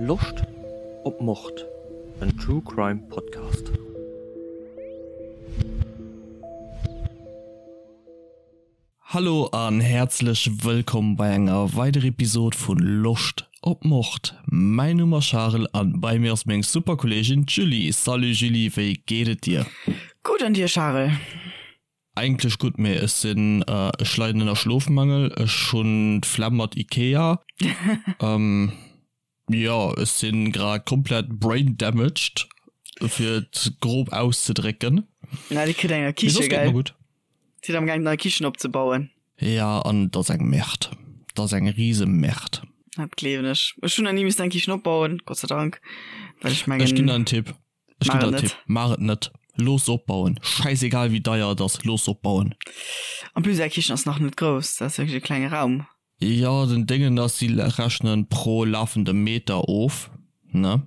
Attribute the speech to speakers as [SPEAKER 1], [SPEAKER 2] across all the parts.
[SPEAKER 1] Loscht op Mord? En True Crime Podcast. Hallo an häerzlech wëllkomm bei enger weider Episode vun Loscht op Mord. Mäin Numm ass Charel an bei mir ass meng super Kolleegin d'Julie. Salut Julie, wéi geet et dir?
[SPEAKER 2] Gutt an dir Charel?
[SPEAKER 1] Eigentlech gutt, mee ech sinn, ech leiden ënner Schlofmangel, ech hunn d'Flemm mat Ikea. Jo, ech sinn grad komplett brain damaged, fir et grob auszedrécken.
[SPEAKER 2] Na, dir kritt eng nei
[SPEAKER 1] Mee soss
[SPEAKER 2] Kiche,
[SPEAKER 1] geet
[SPEAKER 2] gell?
[SPEAKER 1] mer gutt.
[SPEAKER 2] Sidd am gaang nei Kichen opzebauen?
[SPEAKER 1] Ja, an et ass eng Merde. Et ass eng rise Merde.
[SPEAKER 2] Dat gleewen ech. Ech hunn nach ni missen eng Kichen opbauen, Gott sei Dank, well ech
[SPEAKER 1] Ech ginn
[SPEAKER 2] mengen.
[SPEAKER 1] der en Tipp. Ech ginn
[SPEAKER 2] Maach
[SPEAKER 1] der
[SPEAKER 2] et
[SPEAKER 1] en Tipp,
[SPEAKER 2] net.
[SPEAKER 1] maach et net. Looss opbauen. Schäisegal wéi deier et ass, looss opbauen.
[SPEAKER 2] En plus är Kichen ass nach net grouss, dat ass wierklech e klenge Raum.
[SPEAKER 1] Jo, den Déngen ass, si rechnen pro lafendem Meter of, ne,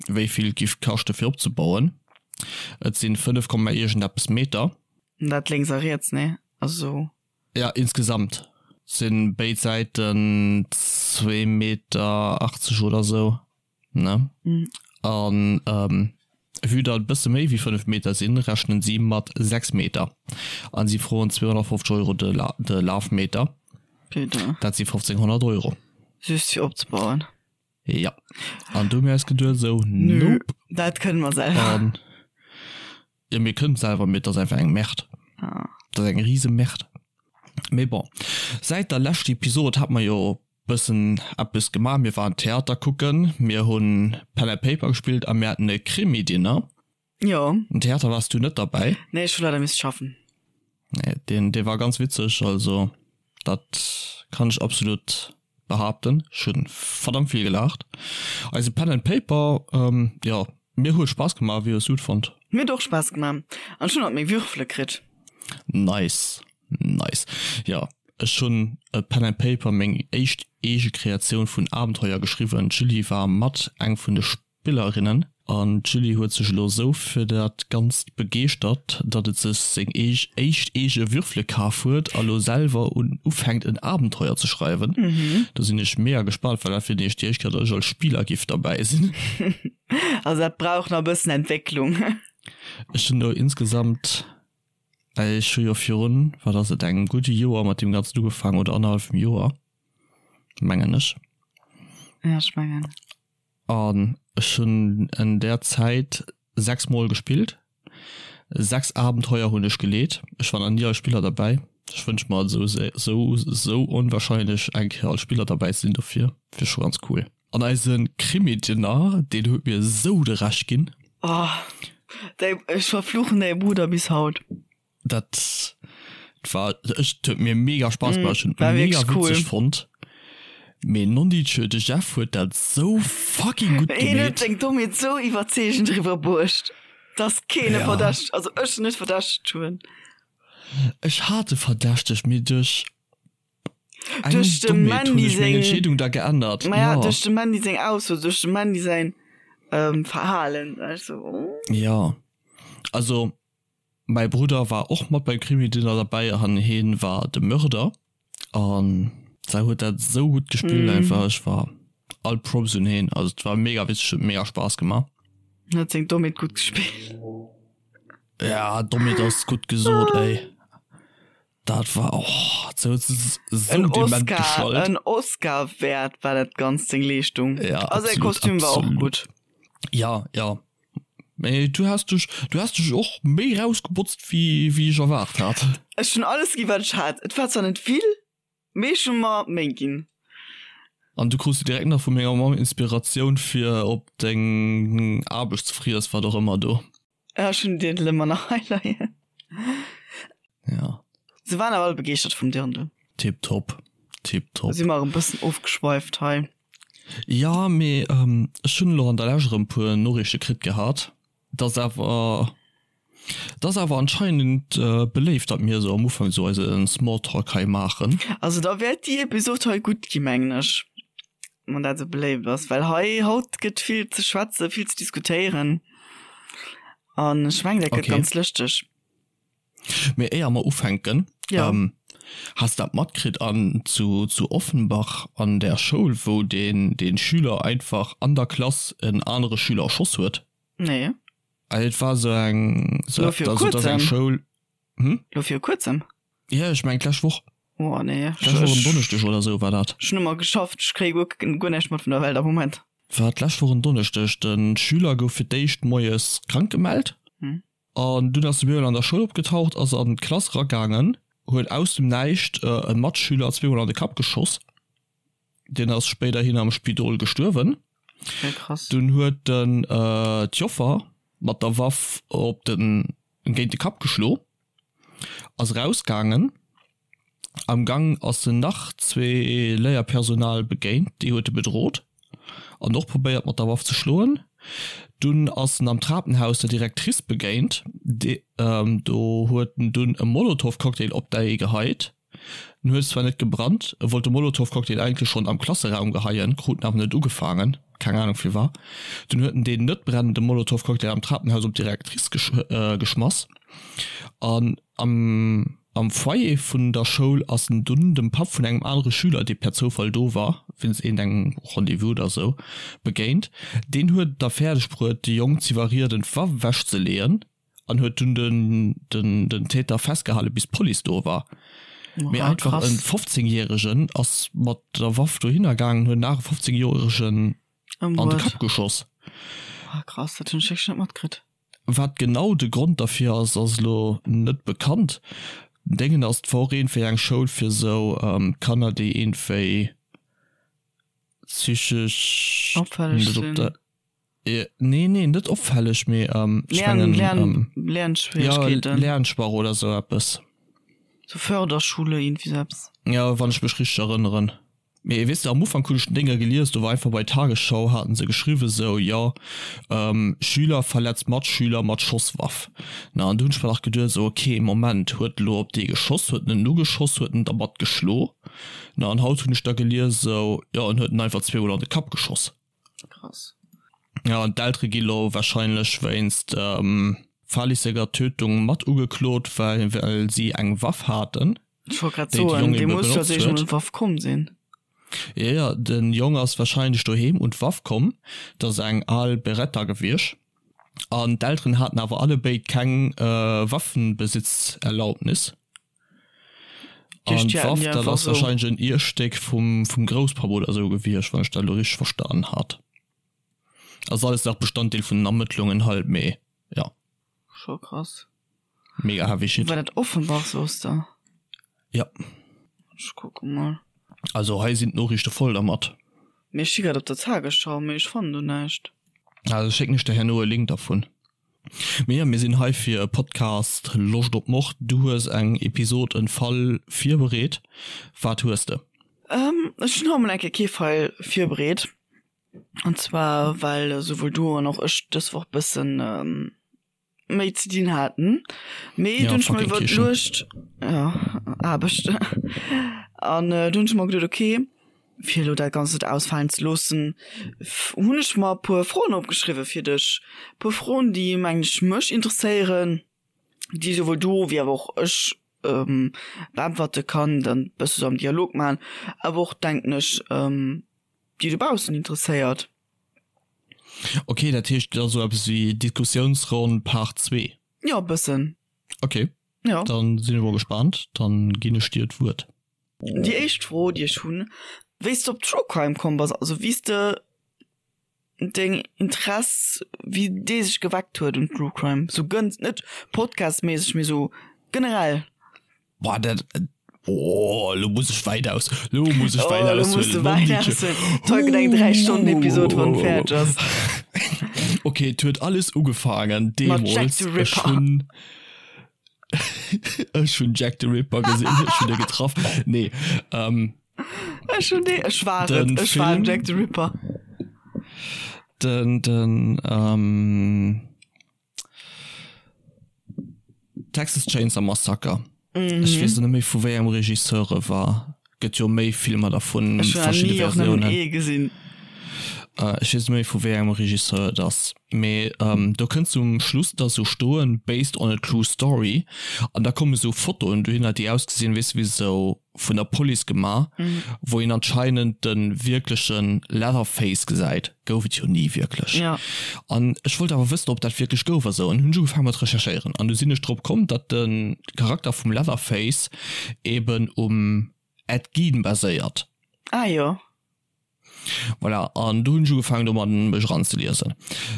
[SPEAKER 1] wéi vill et giff kaschte fir opzebauen. Et sinn 5 Komma iergendeppes Meter.
[SPEAKER 2] Dat lénks a riets, nee? Also.
[SPEAKER 1] Ja, insgesamt sinn béid Säiten zwee Meter 80 oder sou. Ne?
[SPEAKER 2] Mhm.
[SPEAKER 1] An ähm, vue datt et bësse méi wéi 5 Meter sinn, rechnen si mat 6 Meter. An si froen 250 Euro de, La de Lafmeter.
[SPEAKER 2] Putain.
[SPEAKER 1] Dat si 1500 Euro.
[SPEAKER 2] Just fir opzebauen.
[SPEAKER 1] Ja. An du hu mir eis geduet esou,
[SPEAKER 2] Nö,
[SPEAKER 1] nope.
[SPEAKER 2] dat kënne mer selwer.
[SPEAKER 1] An jo, mir kënnen et selwer, mee et ass einfach eng Merde.
[SPEAKER 2] Ah.
[SPEAKER 1] Et ass eng rise Merde. Mee bon, säit der leschter Episod hat mer jo Bëssen eppes gemaach, mir waren Theater kucken, mir hunn Pen and Paper gespillt a mir haten e Krimi-Dinner.
[SPEAKER 2] Jo.
[SPEAKER 1] Um Theater waars du net derbäi.
[SPEAKER 2] Nee, ech hu leider misst schaffen.
[SPEAKER 1] Nee, deen, dee war ganz witzeg, also dat kann ech absolut behaapten. Ech hunn verdammt vill gelaacht. Eise Pen and Paper, jo, mir huet Spaass gemaach. Wéi hues du et fonnt?
[SPEAKER 2] Mir huet och Spaass gemaach an ech hunn alt meng Würfele kritt.
[SPEAKER 1] Nice, nice. Jo, Ech hunn e Pen and Paper, meng éischt eege Kreatioun vun Abenteuer geschriwwen. D'Julie war mat eng vun de Spillerinnen an d'Julie huet sech elo sou fir dat Ganzt begeeschtert, datt et sech seng éischt eege Würfele kaf huet a lo selwer un ufänkt en Abenteuer ze schreiwen. Do sinn ech mega gespaant, well dat wier nämlech déi éischt Kéier, datt ech als Spiller giff derbäi sinn.
[SPEAKER 2] Also dat brauch nach e bëssen Entwécklung.
[SPEAKER 1] Ech hunn elo insgesamt Ech hu jo virun, wat ass et, engem gudde Joer mat deem Ganzen ugefaangen, oder annerhallefem Joer, mengen ech.
[SPEAKER 2] Ja, ech mengen.
[SPEAKER 1] An ech hunn en där Zäit 6 Mol gespillt. 6 Abenteuer hunn ech geleet. Ech war nach ni als Spiller derbäi. Ech wënsch mer et esou, esou, esou onwahrscheinlech eng Kéier als Spiller derbäi ze sinn dofir wier scho ganz cool. An eise Krimi-Dinner, deen huet mir esou de Rescht ginn.
[SPEAKER 2] Oh, däi, ech verfluchen däi Brudder bis haut.
[SPEAKER 1] Dat war, ech, huet mir mega Spaass gemaach, ech hunn et
[SPEAKER 2] War
[SPEAKER 1] mega
[SPEAKER 2] wierklech cool.
[SPEAKER 1] witzeg fonnt. Mee nondidjö, de Jeff huet dat sou fucking gutt
[SPEAKER 2] Hien huet
[SPEAKER 1] gemeet.
[SPEAKER 2] seng Dommheet sou iwwerzeegend eriwwerbruecht, dass keen e
[SPEAKER 1] Ja.
[SPEAKER 2] verdächtegt, also ech net verdächtegt hunn.
[SPEAKER 1] Ech hat e verdächtegt, mee duerch Eng
[SPEAKER 2] Duerch dem
[SPEAKER 1] Dommheet hunn
[SPEAKER 2] Mandy
[SPEAKER 1] ech meng
[SPEAKER 2] seng
[SPEAKER 1] Entscheedung da geännert.
[SPEAKER 2] Maja,
[SPEAKER 1] Ja.
[SPEAKER 2] duerch dem Mandy seng Ausso, duerch dem Mandy säin ähm, Verhalen. War ech so, oh.
[SPEAKER 1] Ja. Also, mäi Brudder war och mat beim Krimi-Dinner derbäi an heen war de Mörder. An sei huet dat sou gutt gespillt
[SPEAKER 2] Mm.
[SPEAKER 1] einfach. Ech war all Props un heen. Also, et war mega witzeg, huet mega Spaass gemaach.
[SPEAKER 2] En huet seng Dommheet gutt gespillt.
[SPEAKER 1] Ja, Dommheet ass gutt gesot, ey. Dat war och sou sou
[SPEAKER 2] En
[SPEAKER 1] dement
[SPEAKER 2] Oscar,
[SPEAKER 1] geschallt.
[SPEAKER 2] en Oscar wäert war dat Ganzt seng Leeschtung.
[SPEAKER 1] Ja,
[SPEAKER 2] Also säi
[SPEAKER 1] absolut,
[SPEAKER 2] Kostüm war och
[SPEAKER 1] absolut.
[SPEAKER 2] gutt.
[SPEAKER 1] Ja, ja. Mee du has dech, du has dech och méi rausgebotzt wéi wéi ech erwaart hat.
[SPEAKER 2] Ech hunn alles gi wat ech hat. Et war zwar net vill, mee ech hu mer Méi ginn.
[SPEAKER 1] An du krus direkt nach vu menger Mamm Inspiratioun fir op deng Aarbechtsfriess, wat och ëmmer do.
[SPEAKER 2] Ja, ech hunn den Dirndl ëmmer nach hei leien.
[SPEAKER 1] Ja.
[SPEAKER 2] Se waren awer all begeeschtert vum Dirndl.
[SPEAKER 1] Tiptop, tiptop.
[SPEAKER 2] Si mer erëm bëssen ofgeschweift hei.
[SPEAKER 1] Ja, mee ech hunn elo an der Lescht erëm puer Noriichte kritt gehat, dass awer, dass awer anscheinend beléift, datt mir esou am Ufank esou eise Smalltalk hei maachen.
[SPEAKER 2] Also da wäert déi Episod hei gutt gi mengen ech, wann dat esou beléift ass, well hei haut gëtt vill ze schwätzen, vill ze diskutéieren an ech mengen dat gëtt
[SPEAKER 1] Okay.
[SPEAKER 2] ganz lëschteg.
[SPEAKER 1] Mee éier mer ufänken,
[SPEAKER 2] Ja.
[SPEAKER 1] Has dat matkritt an zu zu Offenbach an der Schoul wou deen deen Schüler einfach an der Klass en anere Schüler erschoss huet?
[SPEAKER 2] Nee.
[SPEAKER 1] Et war sou eng
[SPEAKER 2] Lo viru
[SPEAKER 1] also et ass eng
[SPEAKER 2] kuerzem?
[SPEAKER 1] Schoul, hm?
[SPEAKER 2] Lo viru kuerzem?
[SPEAKER 1] Jo ech mengen d'lescht Woch.
[SPEAKER 2] Oh nee,
[SPEAKER 1] D'lescht Woch en Donneschdeg oder sou war dat.
[SPEAKER 2] Ech hunn ëmmer geschafft, ech kréie guer guer näischt mat vun der Welt am Moment.
[SPEAKER 1] War d'lescht Woch en Donneschdeg. De Schüler gouf fir d'éischt moies krank gemellt. An dunn ass de Bürel an der Schoul opgetaucht, ass an d'Klass eragaangen, huet aus dem Näischt e Matschüler zweemol an de Kapp geschoss. Deen ass spéiderhin am Spidol gestuerwen.
[SPEAKER 2] Okay, krass.
[SPEAKER 1] Dunn huet en d'Joffer mat der Waff op den, géint de Kapp geschlo, ass erausgaangen. Am Gang ass en nach zwee Léierpersonal begéint, déi huet e bedrot an och probéiert mat der Waff ze schloen. Dunn ass en am Trapenhaus der Directrice begéint, do huet en dunn e Molotowcocktail op déi geheit. En huet zwar net gebrannt, e wollt de Molotowcocktail eigentlech schonn am Klasseraum geheien, krut en awer net ugefaangen, keng Anung firwat. Dunn huet en deen net brennende Molotowcocktail am Trapenhaus op d'Directrice geschmass an am. Am Foyer vun der Schoul ass en dunn dem Papp vun engem anere Schüler, dee per Zoufall do war, wéinst iergendengem Rendez-vous oder sou, begéint. Deen huet et da fäerdeg bruet, de Jong z'iwwerrieden, d'Waff ewechzeleeën an huet dunn den Täter festgehale bis d'Police do war. Mee einfach e 15 Järegen ass mat der Waff dohinner gaangen, huet en anere 15 Joeregen an de Kapp geschoss.
[SPEAKER 2] Ah krass, dat hunn ech wierklech net matkritt.
[SPEAKER 1] Wat genau de Grond derfir ass, ass elo net bekannt. Den Déngen ass, et war och iergendwéi eng Schoul fir sou Kanner, déi iergendwéi psychesch
[SPEAKER 2] Opfälleg sinn.
[SPEAKER 1] Nee, nee, net opfälleg, mee ech mengen.
[SPEAKER 2] Lern, Lernschwierigkeeten.
[SPEAKER 1] Jo, Lernschwach oder sou eppes.
[SPEAKER 2] Sou Förderschule, iergendwéi sou eppes.
[SPEAKER 1] Jo, wann ech mech richteg erënneren. Mee weess de, am Ufank hunn ech den Dénger gelies, do war einfach bei Tagesschau, haten se geschriwwen sou, jo, Schüler verletzt Matschüler mat Schosswaff. Na, an du hunn ech mer nach geduet sou, ok, Moment, huet elo op dee geschoss, huet en en ugeschoss, huet en dermat geschlo? Na, an haut hunn ech da gelies sou, jo, en huet en einfach zweemol an de Kapp geschoss.
[SPEAKER 2] Krass.
[SPEAKER 1] Ja, an d'Eltere gi lo wahrscheinlech wéinst fahrlässiger Tötung mat ugeklot, well si eng Waff haten.
[SPEAKER 2] Ech wollt grad soen, dee muss jo als éischt emol un d'Waff komm sinn.
[SPEAKER 1] Jo, jo, den Jong ass wahrscheinlech doheem un d'Waff komm, dat ass eng al Beretta gewiescht, an d'Elteren haten awer allebéid keng Waffenbesitzerlaubnis. An d'Waff, dat ass wahrscheinlech en Ierstéck vum Grousspapp oder esou gewiescht, wann ech dat elo richteg verstanen hat. Ass alles nach Bestanddeel vun den Ermëttlungen halt, mee jo.
[SPEAKER 2] Scho krass.
[SPEAKER 1] Mega heavy shit.
[SPEAKER 2] War dat Offenbach soos de?
[SPEAKER 1] Ja.
[SPEAKER 2] Ech kucke mol.
[SPEAKER 1] Also hei sinn d'Noriichte voll dermat.
[SPEAKER 2] Mee ech si grad op der Tagesschau, mee ech fannen do näischt.
[SPEAKER 1] Also schécken ech der herno e Link dervun. Mee jo, mir sinn hei fir e Podcast Loscht op Mord. Du hues eng Episod, en Fall virbereet. Wat hues de?
[SPEAKER 2] Ech hunn haut mol eng Kéier kee Fall virbereet. An zwar well souwuel du an och ech dës Woch bëssen méi ze dinn haten. Mee
[SPEAKER 1] Ja,
[SPEAKER 2] dunn ech mer
[SPEAKER 1] fucking Kichen.
[SPEAKER 2] iwwerluecht, ja, Aarbecht. An dunn ech mer geduet, okay, fir elo dat Ganzt net ausfalen ze loossen, hunn ech mer e puer Froen opgeschriwwe fir dech. E puer Froen, déi, mengen ech, mech interesséieren, déi souwuel du wéi awer och ech beäntwerte kann, dann bësse sou am Dialog maachen, awer och, denken ech, déi dobaussen interesséiert.
[SPEAKER 1] Ok, dat heescht et ass esou eppes wéi Diskussiounsronn Part 2?
[SPEAKER 2] Jo, e bëssen.
[SPEAKER 1] Ok,
[SPEAKER 2] Jo.
[SPEAKER 1] dann sinn ech mol gespaant, dann ginn ech dir d'Wuert.
[SPEAKER 2] Déi éischt Fro, déi ech hunn, wéi s de op True Crime komm bass, also wéi s de deng Interess, wéi dee sech geweckt huet un True Crime, sou gënz, net podcastméisseg, mee sou generell.
[SPEAKER 1] Boah, dat, oh, lo muss ech wäit aus, lo muss ech wäit
[SPEAKER 2] Oh, lo muss
[SPEAKER 1] aushuelen.
[SPEAKER 2] de wäit aushuelen. Toll gëtt eng 3 Stonnen Episode, wann fäerdeg ass.
[SPEAKER 1] Okay, et huet alles ugefaangen
[SPEAKER 2] Mat Jack
[SPEAKER 1] deemools.
[SPEAKER 2] the
[SPEAKER 1] Ech
[SPEAKER 2] Ripper.
[SPEAKER 1] hunn ech hunn Jack the Ripper gesinn, ech hunn e getraff. Nee, ähm,
[SPEAKER 2] Ech hunn dee, ech war et,
[SPEAKER 1] den
[SPEAKER 2] ech war den
[SPEAKER 1] Film,
[SPEAKER 2] Jack the Ripper.
[SPEAKER 1] den, den, ähm, Texas Chainsaw Massacre. Ech weess net méi vu wéi engem Regisseur e war. Gëtt jo méi Filmer dervun,
[SPEAKER 2] Ech hunn
[SPEAKER 1] verschidde
[SPEAKER 2] ni och nëmmen
[SPEAKER 1] Versiounen.
[SPEAKER 2] ee gesinn.
[SPEAKER 1] Ech weess net méi vu wéi engem Regisseur et ass, mee do kënnt zum Schluss da sou stoen, based on a true story, an da komme sou Fotoen dohinner, déi ausgesinn, weess de, wéi sou vun der Police gemaach, wou een anscheinend de wierkleche Leatherface gesäit. Gouf et jo ni wierklech. An ech wollt awer wëssen, ob dat wierklech gouf a sou, an hunn ech ugefaange mat recherchéieren. An du sinn ech drop komm, datt de Charakter vum Leatherface eben um Ed Gein baséiert.
[SPEAKER 2] Ah jo.
[SPEAKER 1] Voilà, an du hunn ech ugefaangen domat mech eranzeliesen.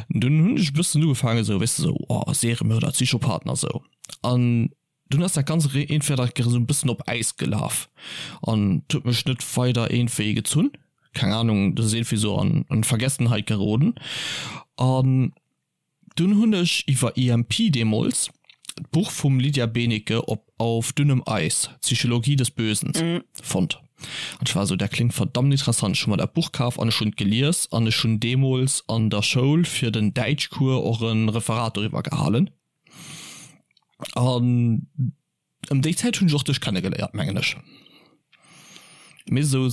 [SPEAKER 1] Dunn hunn ech e bëssen ugefaangen esou, weess de, esou, oh, Seriemörder, Psychopathen a sou. An dunn ass dat Ganzt iergendwéi dat esou e bëssen op Äis gelaf an et huet mech net weider iergendwéi gezunn. Keng Ahnung, dat ass iergendwéi esou an Vergessenheit geroden. An Dunn hunn ech iwwer EMP deemools d'Buch vum Lydia Benecke op Auf dünnem Eis, Psychologie des Bösen fonnt. An ech war esou, dat kléngt verdammt interessant. Ech hu mer dat Buch kaf an ech hunn et gelies an ech hunn deemools an der Schoul fir den Däitschcours och e Referat doriwwer gehalen. An Ëm déi Zäit hunn ech och dech kennegeléiert, mengen ech. Misst esou,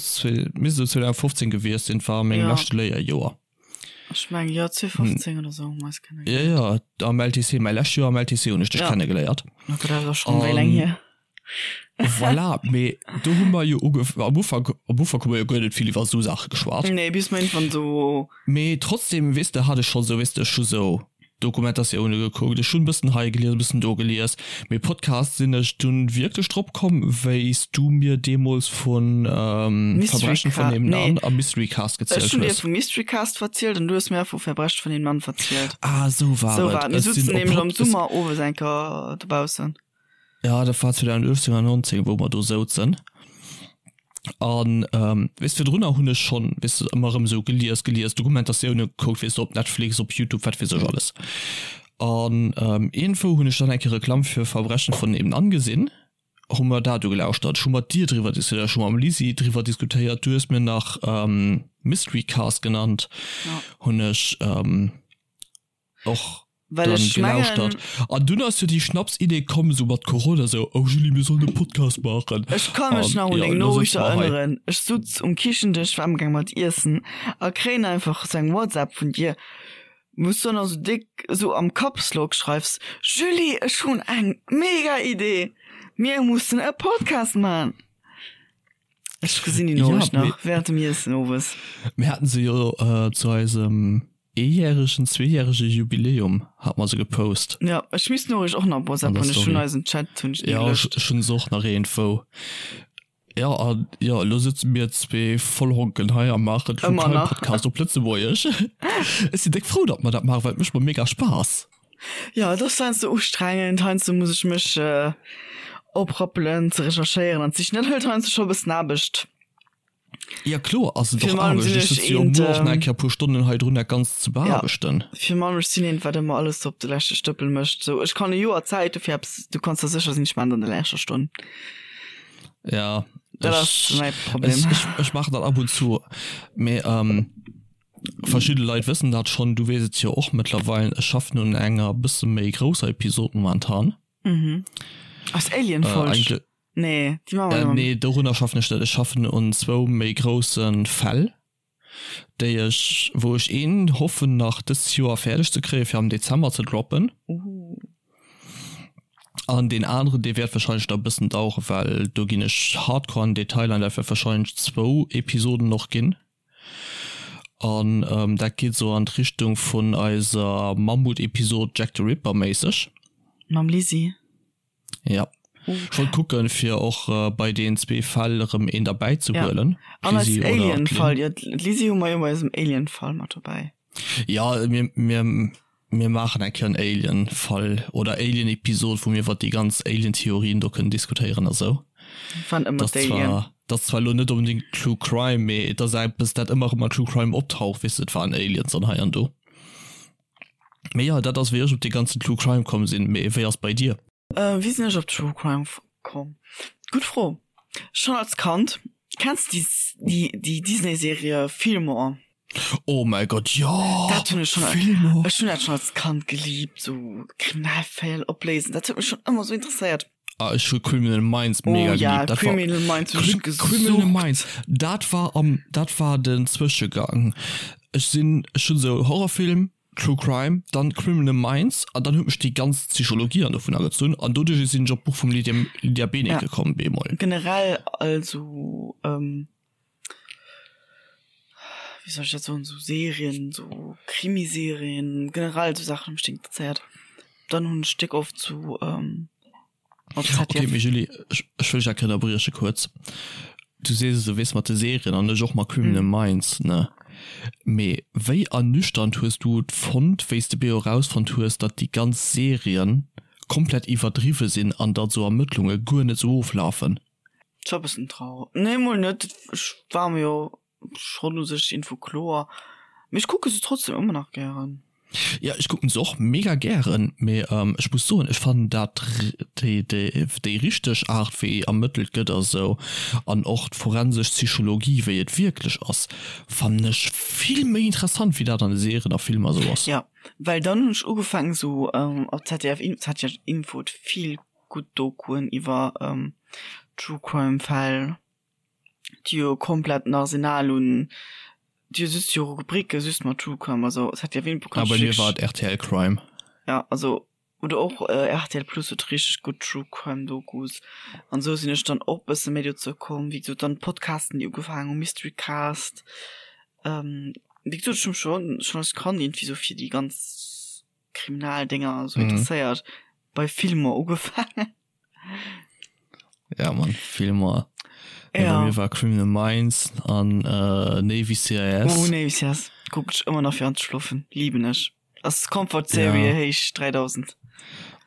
[SPEAKER 1] misst esou 2015 gewiescht sinn, war a mengem leschte Léierjoer.
[SPEAKER 2] Ech mengen, jo, 2015 oder esou hu mer eis
[SPEAKER 1] kennegeléiert. Jo, jo, am LTC, mäi lescht Joer am LTC hunn ech dech kennegeléiert.
[SPEAKER 2] Oh Gott, dat ass schonn wéi laang hier.
[SPEAKER 1] Voilà, mee do hu mer jo ugef-, am Ufank, am Ufank hu mer jo guer net vill iwwer esou Saache geschwat.
[SPEAKER 2] Nee, bis mer iergendwann esou.
[SPEAKER 1] Mee trotzdem, weess de, hat ech schonn esou, weess de, ech hu sou Dokumentatioune gekuckt, ech hunn bëssen hei gelies, e bëssen do gelies, mee Podcast sinn ech dunn wierklech drop komm, wéi s du mir deemools vun
[SPEAKER 2] Verbrechen
[SPEAKER 1] von nebenan a Mystery Cast
[SPEAKER 2] gezielt hues. Ech hunn dir vu Mystery Cast verzielt an du hues mir vu Verbrechen von nebenan verzielt.
[SPEAKER 1] Ah, esou war et.
[SPEAKER 2] Mir sutzen nämlech am Summer owes eng Kéier dobaussen.
[SPEAKER 1] Ja, dat war 2018 an 19, wou mer do souzen. An ähm, weess virdrunner hunn ech schonn, weess de, ëmmer erëm esou gelies, gelies, Dokumentatioune gekuckt, weess de, op Netflix, op Youtube, wat weess ech alles. An ähm, iergendwou hunn ech dann eng Kéier Reklamm fir Verbrechen von nebenan gesinn, hu mer dat ugelauschtert, ech hu mat dir driwwer diskutéiert, ech hu mam Lisi driwwer diskutéiert, du hues mir nach ähm, Mystery Cast genannt, hunn ech ähm, och
[SPEAKER 2] Well
[SPEAKER 1] dann
[SPEAKER 2] ech mengen,
[SPEAKER 1] gelauschtert. An dunn ass jo déi Schnapsidee komm, sou mat Corona, sou, oh Julie, mir sollen e Podcast maachen.
[SPEAKER 2] Ech ka mech
[SPEAKER 1] An
[SPEAKER 2] nach un
[SPEAKER 1] jo,
[SPEAKER 2] deng
[SPEAKER 1] elo
[SPEAKER 2] Noriicht
[SPEAKER 1] sëtze mer hei.
[SPEAKER 2] erënneren. Ech sutz um Kichendësch, war amgaang mat iessen a kréien einfach sou eng WhatsApp vun dir, wou s du dann esou déck esou am Capslock schreifs, Julie, ech hunn eng mega Idee, mir mussen e Podcast man! Ech gesinn déi
[SPEAKER 1] Ja,
[SPEAKER 2] Noriicht
[SPEAKER 1] mee
[SPEAKER 2] nach während dem Iessen owes.
[SPEAKER 1] mir haten se jo zu eisem Eejäregen, zweejärege Jubiläum hat mer se gepost.
[SPEAKER 2] Jo, ech misst d'Noriicht och nach op
[SPEAKER 1] An
[SPEAKER 2] WhatsApp
[SPEAKER 1] der
[SPEAKER 2] hunn. Ech hunn
[SPEAKER 1] Story.
[SPEAKER 2] eisen Chat hunn ech ni
[SPEAKER 1] Jo, ech,
[SPEAKER 2] gelöscht.
[SPEAKER 1] ech hunn se och nach iergendwou. Jo, an jo, elo sëtze mir zwee Vollhonken hei a maachen True
[SPEAKER 2] Ëmmer
[SPEAKER 1] Crime
[SPEAKER 2] nach.
[SPEAKER 1] Podcast op Lëtzebuergesch. Ech sinn déck frou, datt mer dat maachen, well et mécht mer mega Spaass.
[SPEAKER 2] Jo, et ass heiansdo ustrengend, heiansdo muss ech mech oprappelen ze recherchéieren an ze sichen. Dat hëlt heiansdo scho e bëssen Aarbecht.
[SPEAKER 1] Ja kloer ass et och
[SPEAKER 2] Virun allem
[SPEAKER 1] Aarbecht.
[SPEAKER 2] sinn
[SPEAKER 1] Ech
[SPEAKER 2] ech
[SPEAKER 1] sëtze jo
[SPEAKER 2] eent,
[SPEAKER 1] muer och nach eng Kéier e puer Stonnen hei drun dat Ganzt ze
[SPEAKER 2] ja,
[SPEAKER 1] beaarbechten.
[SPEAKER 2] virun allem ech sinn eent, wat ëmmer alles op de leschte Stëppel mécht. Sou, ech kann e Joer Zäit hu fir eppes, du kanns der sécher sinn, ech maachen et an der leschter Stonn.
[SPEAKER 1] Ja,
[SPEAKER 2] Dat ass
[SPEAKER 1] ech,
[SPEAKER 2] mäi Problem.
[SPEAKER 1] ech, ech, ech maachen dat ab und zu. Mee ähm, verschidde Leit wëssen dat schonn, du weess et jo och mëttlerweil, ech schaffen un enger bësse méi grousser Episod momentan.
[SPEAKER 2] Mhm. Ass
[SPEAKER 1] Äh,
[SPEAKER 2] Alien-Folg?
[SPEAKER 1] eigentlech.
[SPEAKER 2] Nee, déi maache mer
[SPEAKER 1] Äh,
[SPEAKER 2] jo.
[SPEAKER 1] nee, dorunner schaffen ech net. Ech schaffen un zwou méi grousse Fäll, déi ech, wou ech een hoffen nach dëst Joer fäerdeg ze kréien, fir am Dezember ze droppen.
[SPEAKER 2] Ooh.
[SPEAKER 1] An deen aneren, dee wäert wahrscheinlech nach e bëssen daueren, well do ginn ech hardcore an den Detail an dat wäert wahrscheinlech zwou Episoden och ginn. An ähm, dat geet sou an d'Richtung vun eiser Mammut-Episod Jack the Ripper méisseg.
[SPEAKER 2] Mam Lisi.
[SPEAKER 1] Ja. Ech wollt kucken fir och bei deen zwee Fäll erëm een derbäi ze huelen.
[SPEAKER 2] An eis Alien Fall, jo d'Lisi hu mer jo bei eisem Alien Fall mat dobäi.
[SPEAKER 1] Ja mir mir mir maachen eng Kéier en Alien Fall oder Alien Episod wou mir iwwert déi ganz Alien Theorien do kënnen diskutéieren a sou.
[SPEAKER 2] Wann ëmmer
[SPEAKER 1] d'Alien. Dat ass zwar elo net onbedingt True Crime, mee et ass eppes dat ëmmer erëm an True Crime optaucht, weess de, et waren Aliens an hei an do. Mee jo, dat ass wéi ech op dee ganzen True Crime komm sinn. Mee wéi ass bei dir?
[SPEAKER 2] Wéi sinn ech op True Crime komm? Gutt Fro. Schonn als Kand. Kenns de déi déi Disney-Serie Fillmore?
[SPEAKER 1] Oh mäi Gott, jo!
[SPEAKER 2] Dat hunn ech schonn,
[SPEAKER 1] Fillmore!
[SPEAKER 2] ech hunn dat schonn als Kand geliebt, sou Kriminalfäll opléisen, dat huet mech schonn ëmmer sou interesséiert.
[SPEAKER 1] Ah, ech hu Criminal Minds mega
[SPEAKER 2] oh, ja,
[SPEAKER 1] geliebt. Dat war,
[SPEAKER 2] Criminal Minds hun ech
[SPEAKER 1] Criminal
[SPEAKER 2] gesucht.
[SPEAKER 1] Minds, dat war am, dat war den Zwëschegang. Ech sinn, ech hunn esou Horrorfilm, True Crime, dann Criminal Minds an dann huet mech déi ganz Psychologie an dovun agezunn an doduerch sinn ech op d'Buch vum Lydia, Lydia Benecke komm bemol.
[SPEAKER 2] Generell also wéi soll ech dat soen, sou Serien, sou Krimiserien, generell sou Saachen hu mech interesséiert. Dann hunn ech déck oft sou.
[SPEAKER 1] Ok, mee Julie, ech wëll dech eng Kéier ënnerbrieche kuerz. Du sees esou, weess, mat de Serien an ech och mat Criminal Minds, ne? Mee wéi ernüchternd hues du et fonnt, wéi s de beo erausfonnt hues, datt déi ganz Serien komplett iwwerdriwwe sinn an datt esou Ermëttlunge guer net esou oflafen?
[SPEAKER 2] Et war e bëssen trauer. Nee, mol net. Ech war mer jo Schon u sech Info kloer, mee ech kucke se trotzdem ëmmer nach gären.
[SPEAKER 1] Jo ech kucken se och mega gären, mee ech muss soen ech fannen dat déi richteg Art wéi ermëttelt gëtt a sou an och d'forensesch Psychologie wéi et wierklech ass fannen ech vill méi interessant wéi dat an de Serien a Filmer sou ass.
[SPEAKER 2] Jo well dann hunn ech ugefaangen sou op ZDF ZDF Info huet vill gutt Dokuen iwwer True Crime Fäll. déi jo komplett en Arsenal un, déi hu just jo Rubriken just mat True Crime, also es hat ja ween
[SPEAKER 1] Ah, bei mir war et RTL Crime.
[SPEAKER 2] Ja, also oder och RTL Plus huet richteg gutt True Crime Dokus an esou sinn ech dann och bësse méi dozou komm, wéi gesot dann d'Podcasten déi ugefaangen hu Mystery Cast, wéi gesot ech hu mech schonn schonn als Kand iergendwéi sou fir déi ganz Kriminaldinger esou interesséiert, bei Filmer ugefaangen.
[SPEAKER 1] Ja man Filmer ja. Bei mir war Criminal Minds an äh, Navy CIS.
[SPEAKER 2] Oh, Navy CIS kuck ech ëmmer nach fir anzeschlofen lieben ech ass Comfort Serie ja. héich 3000.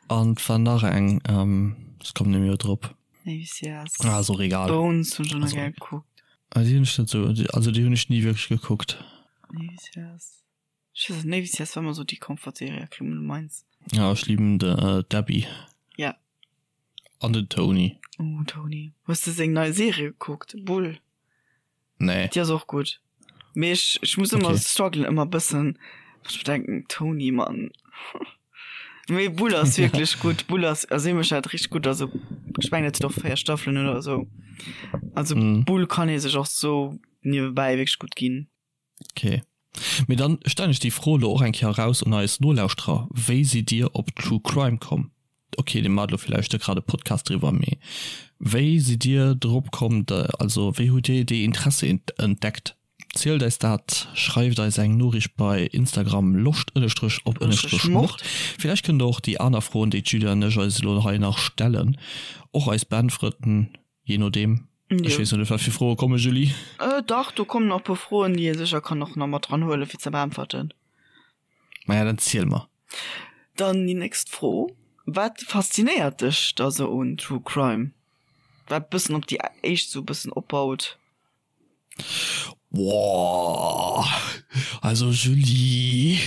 [SPEAKER 1] An war nach eng ähm, ech kommen nemmi drop.
[SPEAKER 2] Navy CIS.
[SPEAKER 1] Ah, ass och egal.
[SPEAKER 2] Bones hunn ech och nach gär gekuckt.
[SPEAKER 1] Ah, déi hunn ech net sou, also déi hunn ech ni wierklech gekuckt.
[SPEAKER 2] Navy CIS. Ech weess net, Navy CIS war ëmmer sou déi Comfort Serie a Criminal Minds.
[SPEAKER 1] Ja, ech liben de d'Abby.
[SPEAKER 2] Ja.
[SPEAKER 1] An den Tony.
[SPEAKER 2] Oh Tony. Hues de seng nei Serie gekuckt, Bull?
[SPEAKER 1] Nee.
[SPEAKER 2] Déi ass och gutt. Mee ech, ech muss ëmmer okay. strugglen ëmmer bëssen, well ech mir denken, Tony, Mann. Mee Bull ass wierklech gutt. Bull ass, also hie mécht dat richteg gutt. Also ech mengen et huet och 4 Staffelen oder esou. Also mm. Bull kann ee sech och sou niewebäi wierklech gutt ginn.
[SPEAKER 1] Ok. Mee dann stellen ech déi Fro elo och eng Kéier eraus un eis Nolauschterer, Wéi sidd Dir op True Crime komm? Ok, dir maacht elo villäicht net grad e Podcast driwwer, mee wéi sidd Dir drop komm, also wéi hutt Dir déi Interesse entdeckt? Zielt eis dat, schreift eis eng Noriicht bei Instagram loscht ënnestrech op ënnestrech mord. Villäicht kënnt der och déi aner Froen, déi d'Julia an ech eis elo hei nach stellen, och eis beäntweren. Je nodeem. Ech weess net, wat fir Froe komme, Julie.
[SPEAKER 2] Dach, do kommen nach e puer Froen, déi ee sécher kann och nach mat dran huelen, fir ze beäntwerten.
[SPEAKER 1] Maja, dann ziel mer.
[SPEAKER 2] Dann déi nächst Fro, Wat faszinéiert dech da sou un True Crime? Wat bëssen op déi éischt sou bëssen opbaut.
[SPEAKER 1] Woah, also Julie.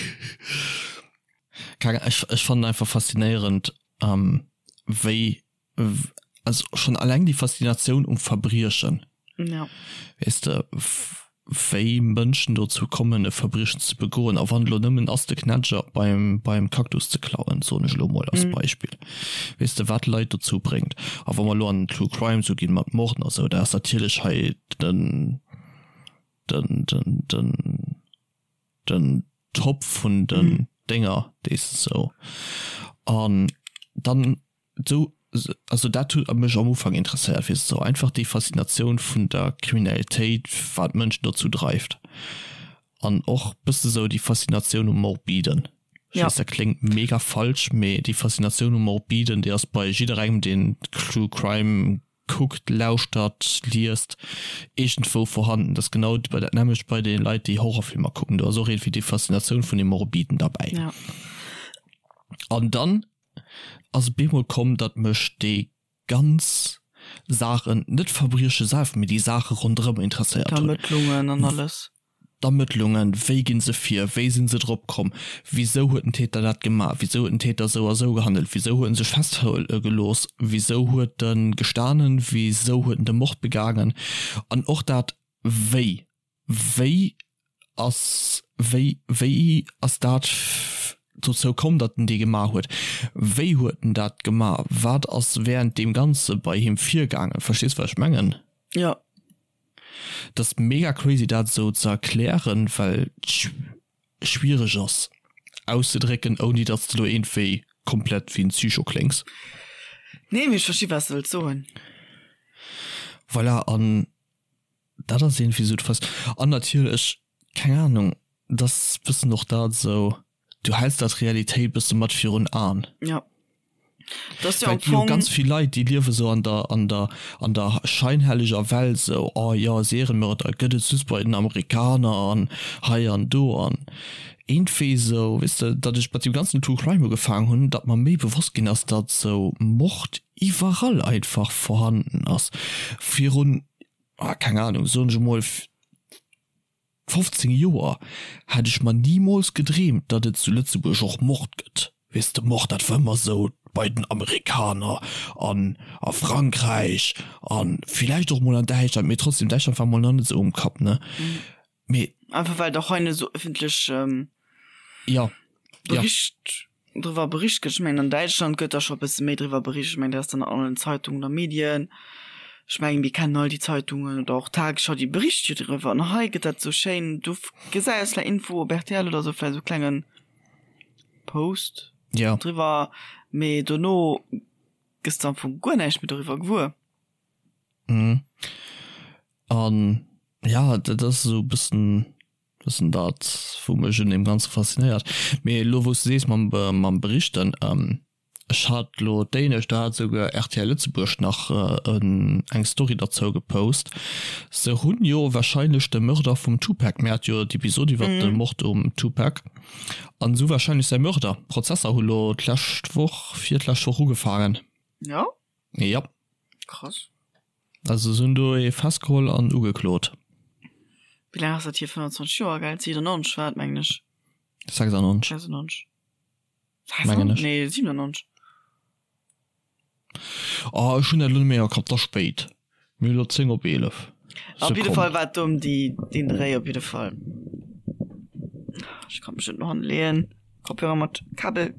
[SPEAKER 1] Keng Ahnung, ech, ech fannen einfach faszinéierend, wéi also schon alleng déi Faszinatioun um Verbriechen.
[SPEAKER 2] Ja.
[SPEAKER 1] Weess de, wéi Mënschen dozou kommen e Verbriechen ze begoen, a wann et elo nëmmen ass de Knätscher beim, beim Cactus ze klauen, soen ech elo mol als Beispill, weess de, wat Leit dozou bréngt. A wa mer elo an den True Crime sou ginn mat Morden a sou, da ass natierlech hei den, den, den, den, den Top vun den Dénger, déi s de sou. An dann Sou, also dat huet mech am Ufank interesséiert, weess de, sou einfach déi Faszinatioun vun der Kriminalitéit, wat d'Mënschen dozou dreift an och bësse sou déi Faszinatioun um Morbiden. Ech weess, dat kléngt mega falsch, mee déi Faszinatioun um Morbiden, déi ass bei jidderengem, deen True Crime kuckt, lauschtert, liest, iergendwou vorhanden. Dat ass genau dat nämmlecht bei de Leit, déi Horrorfilmer kucken, do ass och iergendwéi déi Faszinatioun vun deem Morbiden derbäi. An dann ass et bemol komm, datt mech déi ganz Saachen, net d'Verbrieche selwer, mee déi Saache ronderëm interesséiert hunn.
[SPEAKER 2] D'Ermëttlungen an alles.
[SPEAKER 1] D'Ermëttlungen, wéi gi se vir, wéi si se drop komm, wisou huet den Täter dat gemaach, wisou huet den Täter esou a esou gehandelt, wisou huet en sech festhuele gelooss, wisou huet e gestanen, wisou huet en de Mord begaangen an och dat wéi. Wéi ass, wéi, wéi ass dat dozou komm, datt en dee gemaach huet? Wéi huet en dat gemaach? Wat ass während deem Ganze bei him virgaangen? Verstees, wat ech mengen?
[SPEAKER 2] Jo.
[SPEAKER 1] Dat ass mega crazy dat esou ze erklären, well et schwiereg ass auszedrécken, ouni datt s de lo iergendwéi komplett wéi en Psycho kléngs.
[SPEAKER 2] Nee, mee ech versti wat s de wëlls soen.
[SPEAKER 1] Voilà, an dat ass iergendwéi esou d'Fas. An natierlech, keng Ahnung, dat ass bëssen och dat esou, du häls dat Realitéit bësse mat virun Aen.
[SPEAKER 2] Ja.
[SPEAKER 1] Das ja am Fong ganz vill Leit déi liewe sou an der an der an der scheinhelleger Welt sou oh jo Seriemörder gëtt et just bei den Amerikaner an hei an do an iergendwéi sou weess de datt ech mat deem ganzen True Crime ugefaangen hunn datt mer méi bewosst ginn ass datt sou Mord iwwerall einfach vorhanden ass virun ah keng Ahnung soen ech emol 15 Joer hätt ech mer nimools gedreemt, datt et zu Lëtzebuerg och Mord gëtt. Weess de, Mord, dat war ëmmer esou bei den Amerikaner an a Frankräich a villäicht och mol an Däitschland, mee trotzdem, Däitschland war mol nach net esou um Kapp, ne?
[SPEAKER 2] Mee. Einfach well et och hei net esou ëffentlech.
[SPEAKER 1] Jo, jo.
[SPEAKER 2] Bericht driwwer bericht gëtt. Ech mengen an Däitschland gëtt da scho e bësse méi driwwer bericht. Ech mengen dat ass dann an allen Zeitungen a Medien. Ech mengen mir kennen all déi Zeitungen oder och d'Tagesschau, déi bericht jo driwwer. An hei gëtt dat esou schéin, du gesäis vläicht Info op rtl oder esou vläicht esou klenge Post
[SPEAKER 1] Ja.
[SPEAKER 2] driwwer, mee dono gëss de am Fong guer näischt méi doriwwer gewuer.
[SPEAKER 1] Mhm. An ja, dat ass esou e bëssen Bëssen dat wou mech un deem ganze faszinéiert. Mee elo wou s de sees mam mam Berichten, ech hat elo d'éinescht, do hat esouguer rtl Lëtzebuerg nach en eng Story derzou gepost, se hunn jo wahrscheinlech de Mörder vum Tupac, mir hate jo d'Episod iwwert de Mord um Tupac, an esou wahrscheinlech säi Mörder. D'Prozesser hu lo d'lescht Woch, virlescht Woch ugefaangen.
[SPEAKER 2] Jo?
[SPEAKER 1] Jo.
[SPEAKER 2] Krass.
[SPEAKER 1] Also se hunn do ee festgeholl an ugeklot.
[SPEAKER 2] Wéi laang ass dat hier? 25 Joer, gell? 97 war et, mengen ech.
[SPEAKER 1] 96.
[SPEAKER 2] 96.
[SPEAKER 1] Mengen ech.
[SPEAKER 2] Nee, 97.
[SPEAKER 1] Oh, ech hunn dat elo net méi am Kapp, 't ass spéit. Mir hunn elo 10 op 11.
[SPEAKER 2] Op jidde Fall war et do ëm déi, deen Dréi op jidde Fall. Ech kann mech net no hanne leeën. Kopfhörer mat Kabel.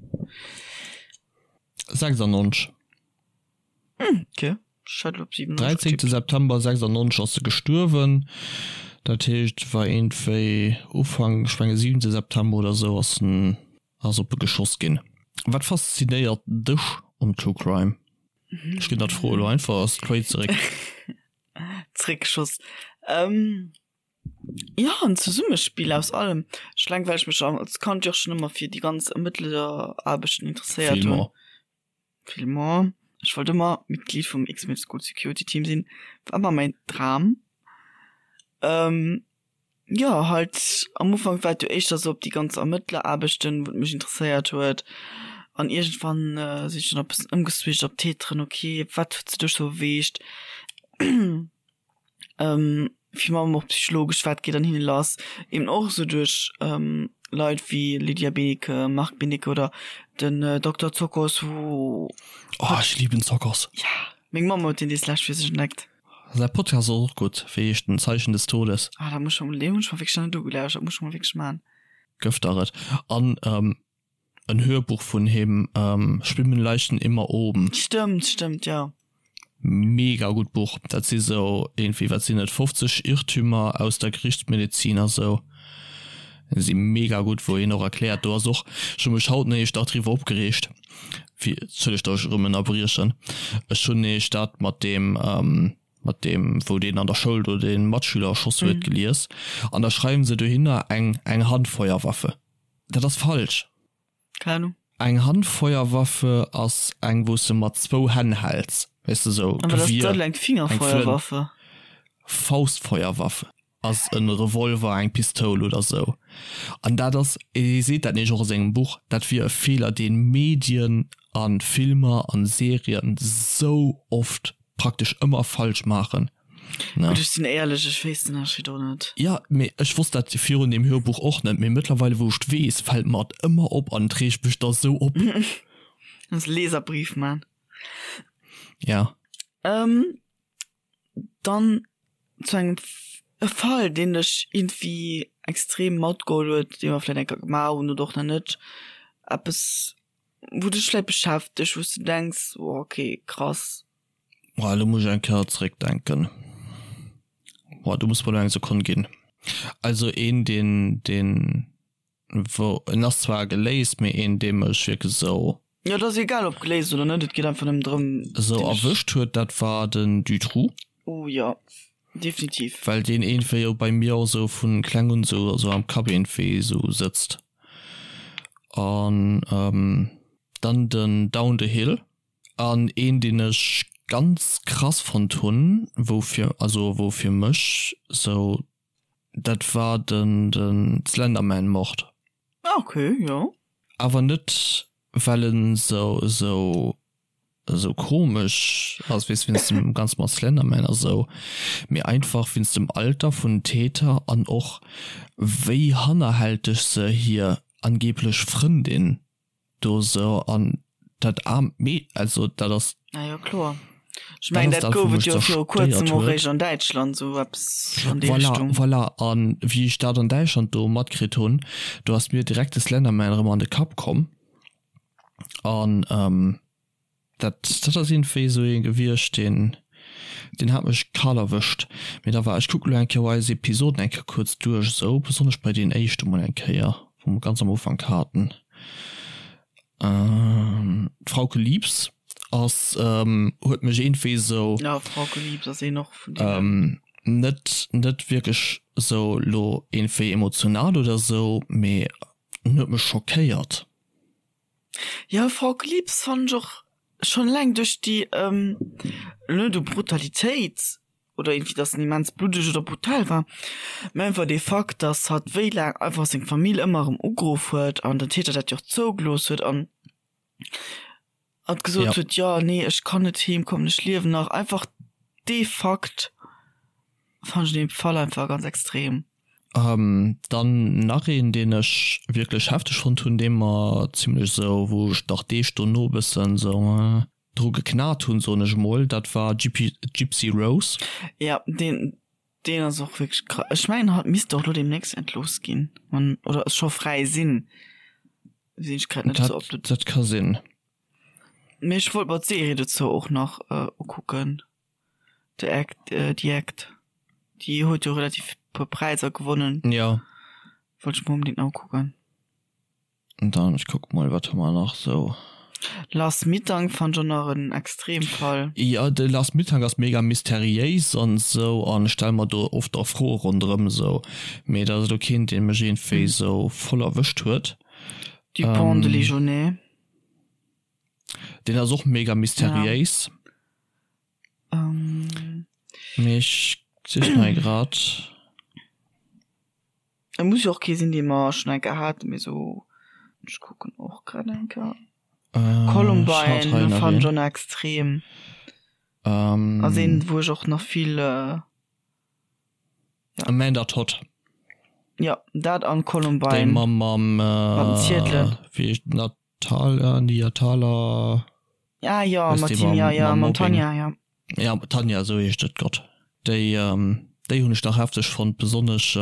[SPEAKER 1] 96.
[SPEAKER 2] Hm, okay. Ech hat elo op
[SPEAKER 1] 97 13. getippt. September 96 ass se gestuerwen. Dat heescht, et war iergendwéi Ufank, ech menge 7. September oder esou ass en, ass op e geschoss ginn. Wat faszinéiert dech um True Crime? Ech ginn der d'Fro elo einfach straight zeréck.
[SPEAKER 2] Zeréckgeschoss. Ähm, jo, en Zesummespill aus allem. Ech eleng well ech mech als Kand jo och schonn ëmmer fir déi ganz Ermëttleraarbechten interesséiert hunn.
[SPEAKER 1] Filmer.
[SPEAKER 2] Filmer. Ech wollt ëmmer Mitglied vum X-Men School Security Team sinn. War ëmmer mäin Dram. Ähm, jo, halt am Ufank war et jo éischter sou op déi ganz Ermëttleraarbechten, wou et mech interesséiert huet. An iergendwann sinn ech dann och e bëssen ëmgeswitcht op d'Täteren. Ok, wat huet se duerch sou beweegt? Virun allem och psychologesch, wat geet an hinne lass, eben och esou duerch Leit wéi Lydia Benecke, Marc Benecke oder den Dokter Zokos, wou.
[SPEAKER 1] Oh, ech liben Zokos.
[SPEAKER 2] Ja, meng Mamm huet deen dees lescht fir sech entdeckt.
[SPEAKER 1] Säi Podcast ass och gutt, wéi heescht den, Zeichen des Todes.
[SPEAKER 2] Ah, dat muss ech mol, deen hunn ech mer wierklech nach net ugelauschtert, dat muss ech mol wierklech man.
[SPEAKER 1] Gëff der et. An en Hörbuch vun him, Schwimmen Leichen immer oben.
[SPEAKER 2] Stëmmt, stëmmt, jo.
[SPEAKER 1] Mega gutt Buch. Dat si sou iergendwéi, wat sinn et, 50 Irrtümer aus der Gerichtsmedezin a sou. Si mega gutt, wou hien och erkläert, do ass och, ech hu mech haut néicht nach driwwer opgereegt, fir, entschëllegt, datt ech erëm ënnerbriechen, ech hunn néicht dat mat deem, mat deem wou deen an der Schoul do dee Matschüler erschoss huet, gelies an da schreiwen se dohinner eng, eng Handfeuerwaffe. Dat ass falsch.
[SPEAKER 2] Keng Ahnung.
[SPEAKER 1] Eng Handfeuerwaffe ass eng wou s de mat zwou Hänn häls, weess de sou
[SPEAKER 2] An wat ass
[SPEAKER 1] Gewier,
[SPEAKER 2] dann eng
[SPEAKER 1] eng Flënt.
[SPEAKER 2] Fingerfeuerwaffe?
[SPEAKER 1] Faustfeuerwaffe ass en Revolver, eng Pistoul oder sou. An dat ass, hie seet dat nämlech och a sengem Buch, dat wier e Feeler deen Medien a Filmer an Serien sou oft praktesch ëmmer falsch maachen.
[SPEAKER 2] Ne? Gutt, ech sinn éierlech, ech weess den Ënnerscheed och net.
[SPEAKER 1] Ja, mee ech wosst dat virun deem Hörbuch och net, mee mëttlerweile wou ech et weess, fält mer et ëmmer op an et reegt mech da sou op.
[SPEAKER 2] Muss Leserbrief man.
[SPEAKER 1] Ja.
[SPEAKER 2] Ähm, dann zu engem e Fall, deen dech iergendwéi extrem matgeholl huet, dee mer vläicht eng Kéier gemaach hunn oder och nach net, eppes wou dech vläicht beschäftegt, wou s de denks, oh okay, krass.
[SPEAKER 1] Oh, elo muss ech eng Kéier zeréckdenken. Boah, do muss mer elo eng Sekonn ginn. Also een deen deen wou en ass zwar geléist, mee een dee mech wierklech esou.
[SPEAKER 2] Jo, et ass egal ob geléist oder net, et geet einfach nëmmen drëm.
[SPEAKER 1] Esou erwëscht huet, dat war den Dutroux.
[SPEAKER 2] Oh jo, definitiv.
[SPEAKER 1] Well deen iergendwéi jo bei mir och esou vu kleng un esou esou am Kapp iergendwéi esou sëtzt. An dann den Down the Hill. An een deen ech ganz krass fonnt hunn, wou fir, also wou fir mech sou, dat war den den Slenderman Mord.
[SPEAKER 2] Ah ok, jo.
[SPEAKER 1] Awer net well en sou sou sou komesch ass, weess wéinst dem ganze mat Slenderman a sou, mee einfach wéinst dem Alter vun den Täter an och wéi hannerhälteg se hir angeblech Frëndin do sou an dat aarmt Mee also dat ass.
[SPEAKER 2] Ah jo kloer. Ech mengen dat gouf et jo viru kuerzem och réischt an Däitschland sou eppes an déi
[SPEAKER 1] Voilà, Richtung. voilà an wéi ech dat an Däitschland do matkritt hunn, do ass mir direkt de Slenderman erëm an de Kapp komm an Dat, dat ass iergendwéi esou ee gewiescht, deen, deen hat mech kal erwëscht. Mee da war, ech kucke lo eng Kéier eis Episoden eng Kéier kuerz duerch esou, besonnesch bei deen éischte mol eng Kéier, wou mer ganz am Ufank haten. D'Frauke Liebs ass, huet mech iergendwéi esou.
[SPEAKER 2] Jo, Frauke Liebs ass een och vun deenen.
[SPEAKER 1] Net, net wierklech esou lo iergendwéi emotional oder esou, mee en huet mech schockéiert.
[SPEAKER 2] Jo, Frauke Liebs fannen ech och schon eleng duerch déi, net u Brutalitéit oder iergendwéi dass en immens bluddeg oder brutal war, mä einfach dee Fakt, dass hatt wéi laang einfach seng Famill ëmmer erëm ugeruff huet an den Täter dat jo och zougelooss huet an hatt gesot huet, jo nee ech kann net heem kommen, ech liewen nach. Einfach dee Fakt fannen ech an deem Fall einfach ganz extrem.
[SPEAKER 1] Dann nach een deen ech wierklech hefteg fonnt hunn, dee mer zimlech esou, wou ech nach Deeg dono e bëssen esou dru geknat hunn, soen ech emol, dat war Gypsy Rose.
[SPEAKER 2] Jo, deen deen ass och wierklech krass. Ech mengen hatt misst och elo deemnächst entlooss ginn, wann, oder scho fräi sinn, sinn ech grad net
[SPEAKER 1] esou up to. Dat ka sinn.
[SPEAKER 2] Mee ech wollt mer d'Serie dozou och nach ukucken. The Act, The Act. Déi huet jo relativ puer Präisser gewonnen.
[SPEAKER 1] Jo.
[SPEAKER 2] Wollt ech mer onbedéngt nach ukucken.
[SPEAKER 1] Dann, ech kucke mol, wat hu mer nach sou.
[SPEAKER 2] Lars Mittank fannt ech och nach en Extremfall.
[SPEAKER 1] Jo, de Lars Mittank ass mega mysteriéis an sou an ech stelle mer do oft och Froe ronderëm sou, mee dat ass elo keen, dee mech iergendwéi sou voll erwëscht huet.
[SPEAKER 2] Dupont de Ligonnès.
[SPEAKER 1] Deen ass och mega mysteriéis. Mee ech sichen hei grad.
[SPEAKER 2] Et muss jo och kee sinn, dee mer schonn eng Kéier haten, mee sou, ech kucken och grad eng Kéier. Columbine fannen ech och nach extrem. Ass een, wou ech och nach vill, ja.
[SPEAKER 1] Amanda Todd.
[SPEAKER 2] Jo, dat an Columbine.
[SPEAKER 1] Déi mam, mam,
[SPEAKER 2] Mat den Ziedelen.
[SPEAKER 1] Wéi heescht dat? Thaler, Nia Thaler.
[SPEAKER 2] Ah jo, mat him, jo, jo, mam Tanja, jo.
[SPEAKER 1] Ja, Tanja, esou heescht et, Gott. Déi, déi hunn ech nach hefteg fonnt, besonnesch,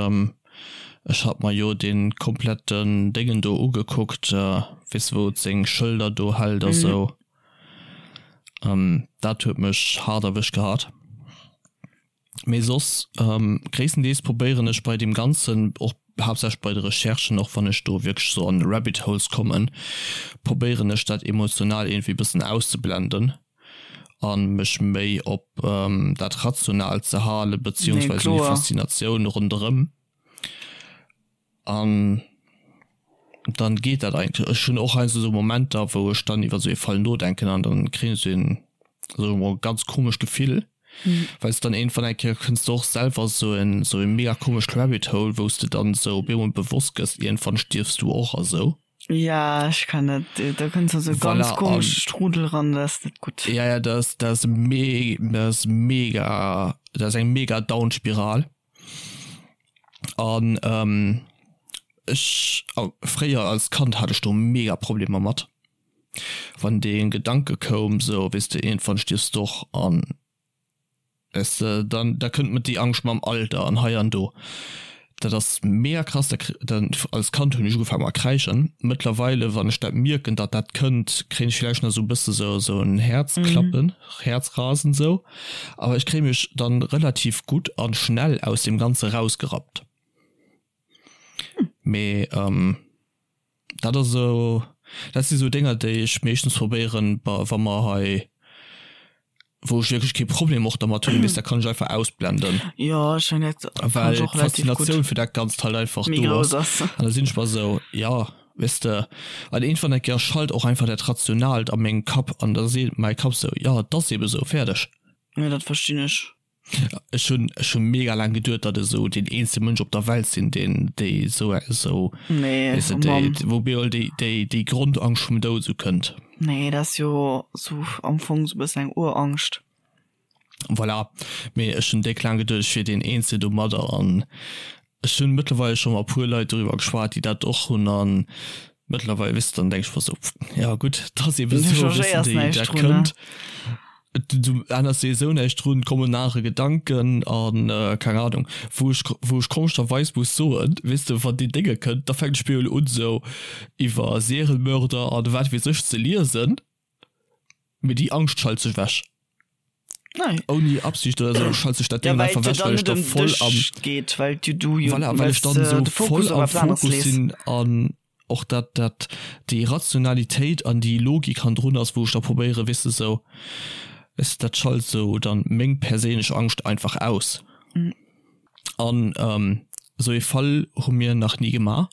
[SPEAKER 1] ech hat mer jo dee kompletten Déngen do ugekuckt, weess de, wou et seng Schëlder do hält a sou. Dat huet mech haart erwëscht gehat. Mee soss, gréisstendeels probéieren ech bei deem Ganzen, och haaptsächlech bei de Recherchen, och wann ech do wierklech sou an Rabbit Holes kommen, probéieren ech dat emotional iergendwéi bëssen auszeblenden a mech méi op dat Rationaalt ze halen, beziehungsweise déi Faszinatioun ronderëm. An dann geet dat eigentlech. Ech hunn och heiansdo esou Momenter, wou ech dann iwwer esou ee Fall nodenken an dann kréien ech esou een, soe mer mol, ganz komescht Gefill, well s de dann iergendwann eng Kéier kënns de och selwer esou en, esou e mega komescht Rabbit Hole, wou s de dann esou op eemol bewosst gëss, iergendwann stierfs du och a sou.
[SPEAKER 2] Ja, ech kann dat, da kënns du an esou e ganz
[SPEAKER 1] Voilà, an.
[SPEAKER 2] komesche Strudel ran, dat ass net gutt.
[SPEAKER 1] Ja, ja, dat ass, dat ass me, dat ass mega, dat ass eng mega Down-Spiral. An ech, fréier als Kand hat ech do mega Problemer mat, wann dee Gedanke koum, sou weess de, iergendwann stierfs de och an weess de, dann da kënnt mat déi Angscht mam Alter an hei an do. Dat ass mega krass, da kr dann als Kand hunn ech ugefaangen mat kräischen. Mëttlerweile wann ech dat mierken, datt dat kënnt, kréien ech villäicht nach esou e bësse sou sou en Häerzklappen, Häerzrasen sou, awer ech kréie mech dann relativ gutt an schnell aus deem Ganze rausgerappt. Mee dat ass esou, dat si sou Dénger déi ech meeschtens probéieren, wa mer hei, wou ech wierklech kee Problem och dermat hunn, weess, dat kann ech einfach ausblenden.
[SPEAKER 2] Jo, ech mengen dat
[SPEAKER 1] kann ech och relativ gutt. Well d'Faszinatioun fir dat Ganzt halt einfach do ass. An da sinn ech mer esou, jo, weess de, an iergendwann eng Kéier schalt och einfach dat Rationaalt a mengem Kapp an da seet mäi Kapp esou, jo, et ass eebe sou, fäerdeg.
[SPEAKER 2] Jo, dat verstinn ech.
[SPEAKER 1] Ech hunn ech hunn mega laang geduet, datt ech esou deen eenzege Mënsch op der Welt sinn, deen déi esou esou
[SPEAKER 2] Nee,
[SPEAKER 1] weess de,
[SPEAKER 2] oh
[SPEAKER 1] déi
[SPEAKER 2] Mann.
[SPEAKER 1] wou bemol déi déi déi Grondangscht vum Doud esou kënnt.
[SPEAKER 2] Nee, dat ass jo esou am Fong esou e bëssen eng Urangscht.
[SPEAKER 1] Voilà, mee ech hunn déck laang geduet, ech wier deen eenzegen domadder an Ech hunn mëttlerweil scho mat puer Leit doriwwer geschwat, déi dat och hunn an mëttlerweil, weess de, dann denk ech mer sou, ja gutt, et ass eben
[SPEAKER 2] Du
[SPEAKER 1] sou, weess de,
[SPEAKER 2] changéiers
[SPEAKER 1] déi
[SPEAKER 2] näischt
[SPEAKER 1] dat
[SPEAKER 2] drun, ne?
[SPEAKER 1] kënnt. Du änners souwisou näischt drun, et kommen anere Gedanken an keng Ahnung. Wou ech, wou ech komescherweis muss soen, weess de, wann déi Dénge kënnt, da fänkt ech bemol un sou iwwer Serienmörder an wat weess ech ze liesen. Mee déi Angscht schalt sech wech.
[SPEAKER 2] Nein.
[SPEAKER 1] Ouni Absicht oder sou schalt sech dat
[SPEAKER 2] Ja,
[SPEAKER 1] Ding
[SPEAKER 2] well
[SPEAKER 1] einfach
[SPEAKER 2] et
[SPEAKER 1] wech,
[SPEAKER 2] dann
[SPEAKER 1] well ech
[SPEAKER 2] net
[SPEAKER 1] da
[SPEAKER 2] ëm
[SPEAKER 1] voll
[SPEAKER 2] dech
[SPEAKER 1] am
[SPEAKER 2] geet, well du du jo
[SPEAKER 1] Voilà, well ech
[SPEAKER 2] wells
[SPEAKER 1] dann
[SPEAKER 2] de
[SPEAKER 1] sou
[SPEAKER 2] de Fokus
[SPEAKER 1] voll
[SPEAKER 2] op
[SPEAKER 1] am
[SPEAKER 2] eppes aneres
[SPEAKER 1] Fokus
[SPEAKER 2] lees.
[SPEAKER 1] sinn an och dat dat déi Rationalitéit an déi Logik hannendrun ass, wou ech da probéieren, weess de, sou, weess de, dat schalt sou dann meng perséinlech Angscht einfach aus. An esou ee Fall hu mir nach ni gemaach.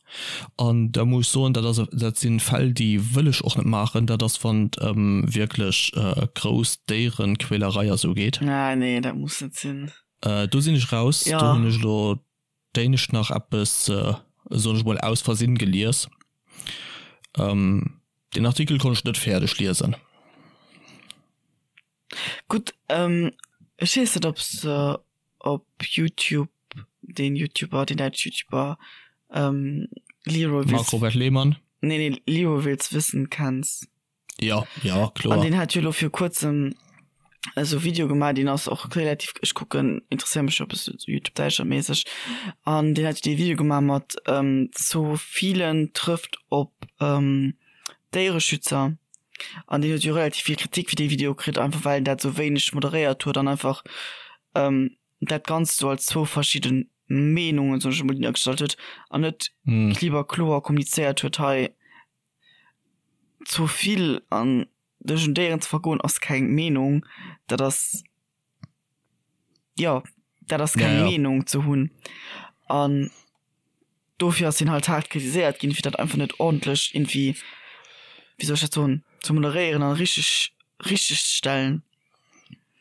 [SPEAKER 1] An da muss ech soen, dat ass, dat si Fäll, déi wëll ech och net maachen. Dat ass, wann et ëm wierklech grouss Déierequälerei a sou geet.
[SPEAKER 2] Ah nee, dat muss net sinn.
[SPEAKER 1] Do sinn ech raus.
[SPEAKER 2] Jo.
[SPEAKER 1] Do hunn ech elo d'éinescht nach eppes, soen ech mol, aus Versinn gelies. Deen Artikel konnt ech net fäerdeg liesen.
[SPEAKER 2] Gutt, ech weess net ob s de op Youtube deen Youtuber, deen däitsch Youtuber Leroy
[SPEAKER 1] Marc
[SPEAKER 2] Wills,
[SPEAKER 1] Robert Lehmann?
[SPEAKER 2] nee nee Leroy Wills Wissen kenns.
[SPEAKER 1] Jo, jo, kloer.
[SPEAKER 2] An deen hat jo elo vir kuerzem esou Video gemaach, deen ass och relativ, ech kucken, interesséier mech jo e bëssen esou Youtube Däitschland-méisseg, an deen hat jo dee Video gemaach mat Zoophilen trëfft op Déiereschützer. An deen huet jo relativ vill Kritik fir dee Video kritt, einfach well en dat sou wéineg moderéiert huet an einfach dat Ganzt sou als zwou verschidde Meenungen, soen ech emol, duergestallt huet an net kliber kloer kommunizéiert huet, hei Zoophil an dech un Déieren ze vergoen ass keng Meenung, dat ass, jo, dat ass keng Meenung ze hunn. An dofir ass hien halt haart kritiséiert ginn, fir dat einfach net ordentlech irgendwie, wéi soll ech dat soen, ze moderéieren an richteg richteg ze stellen.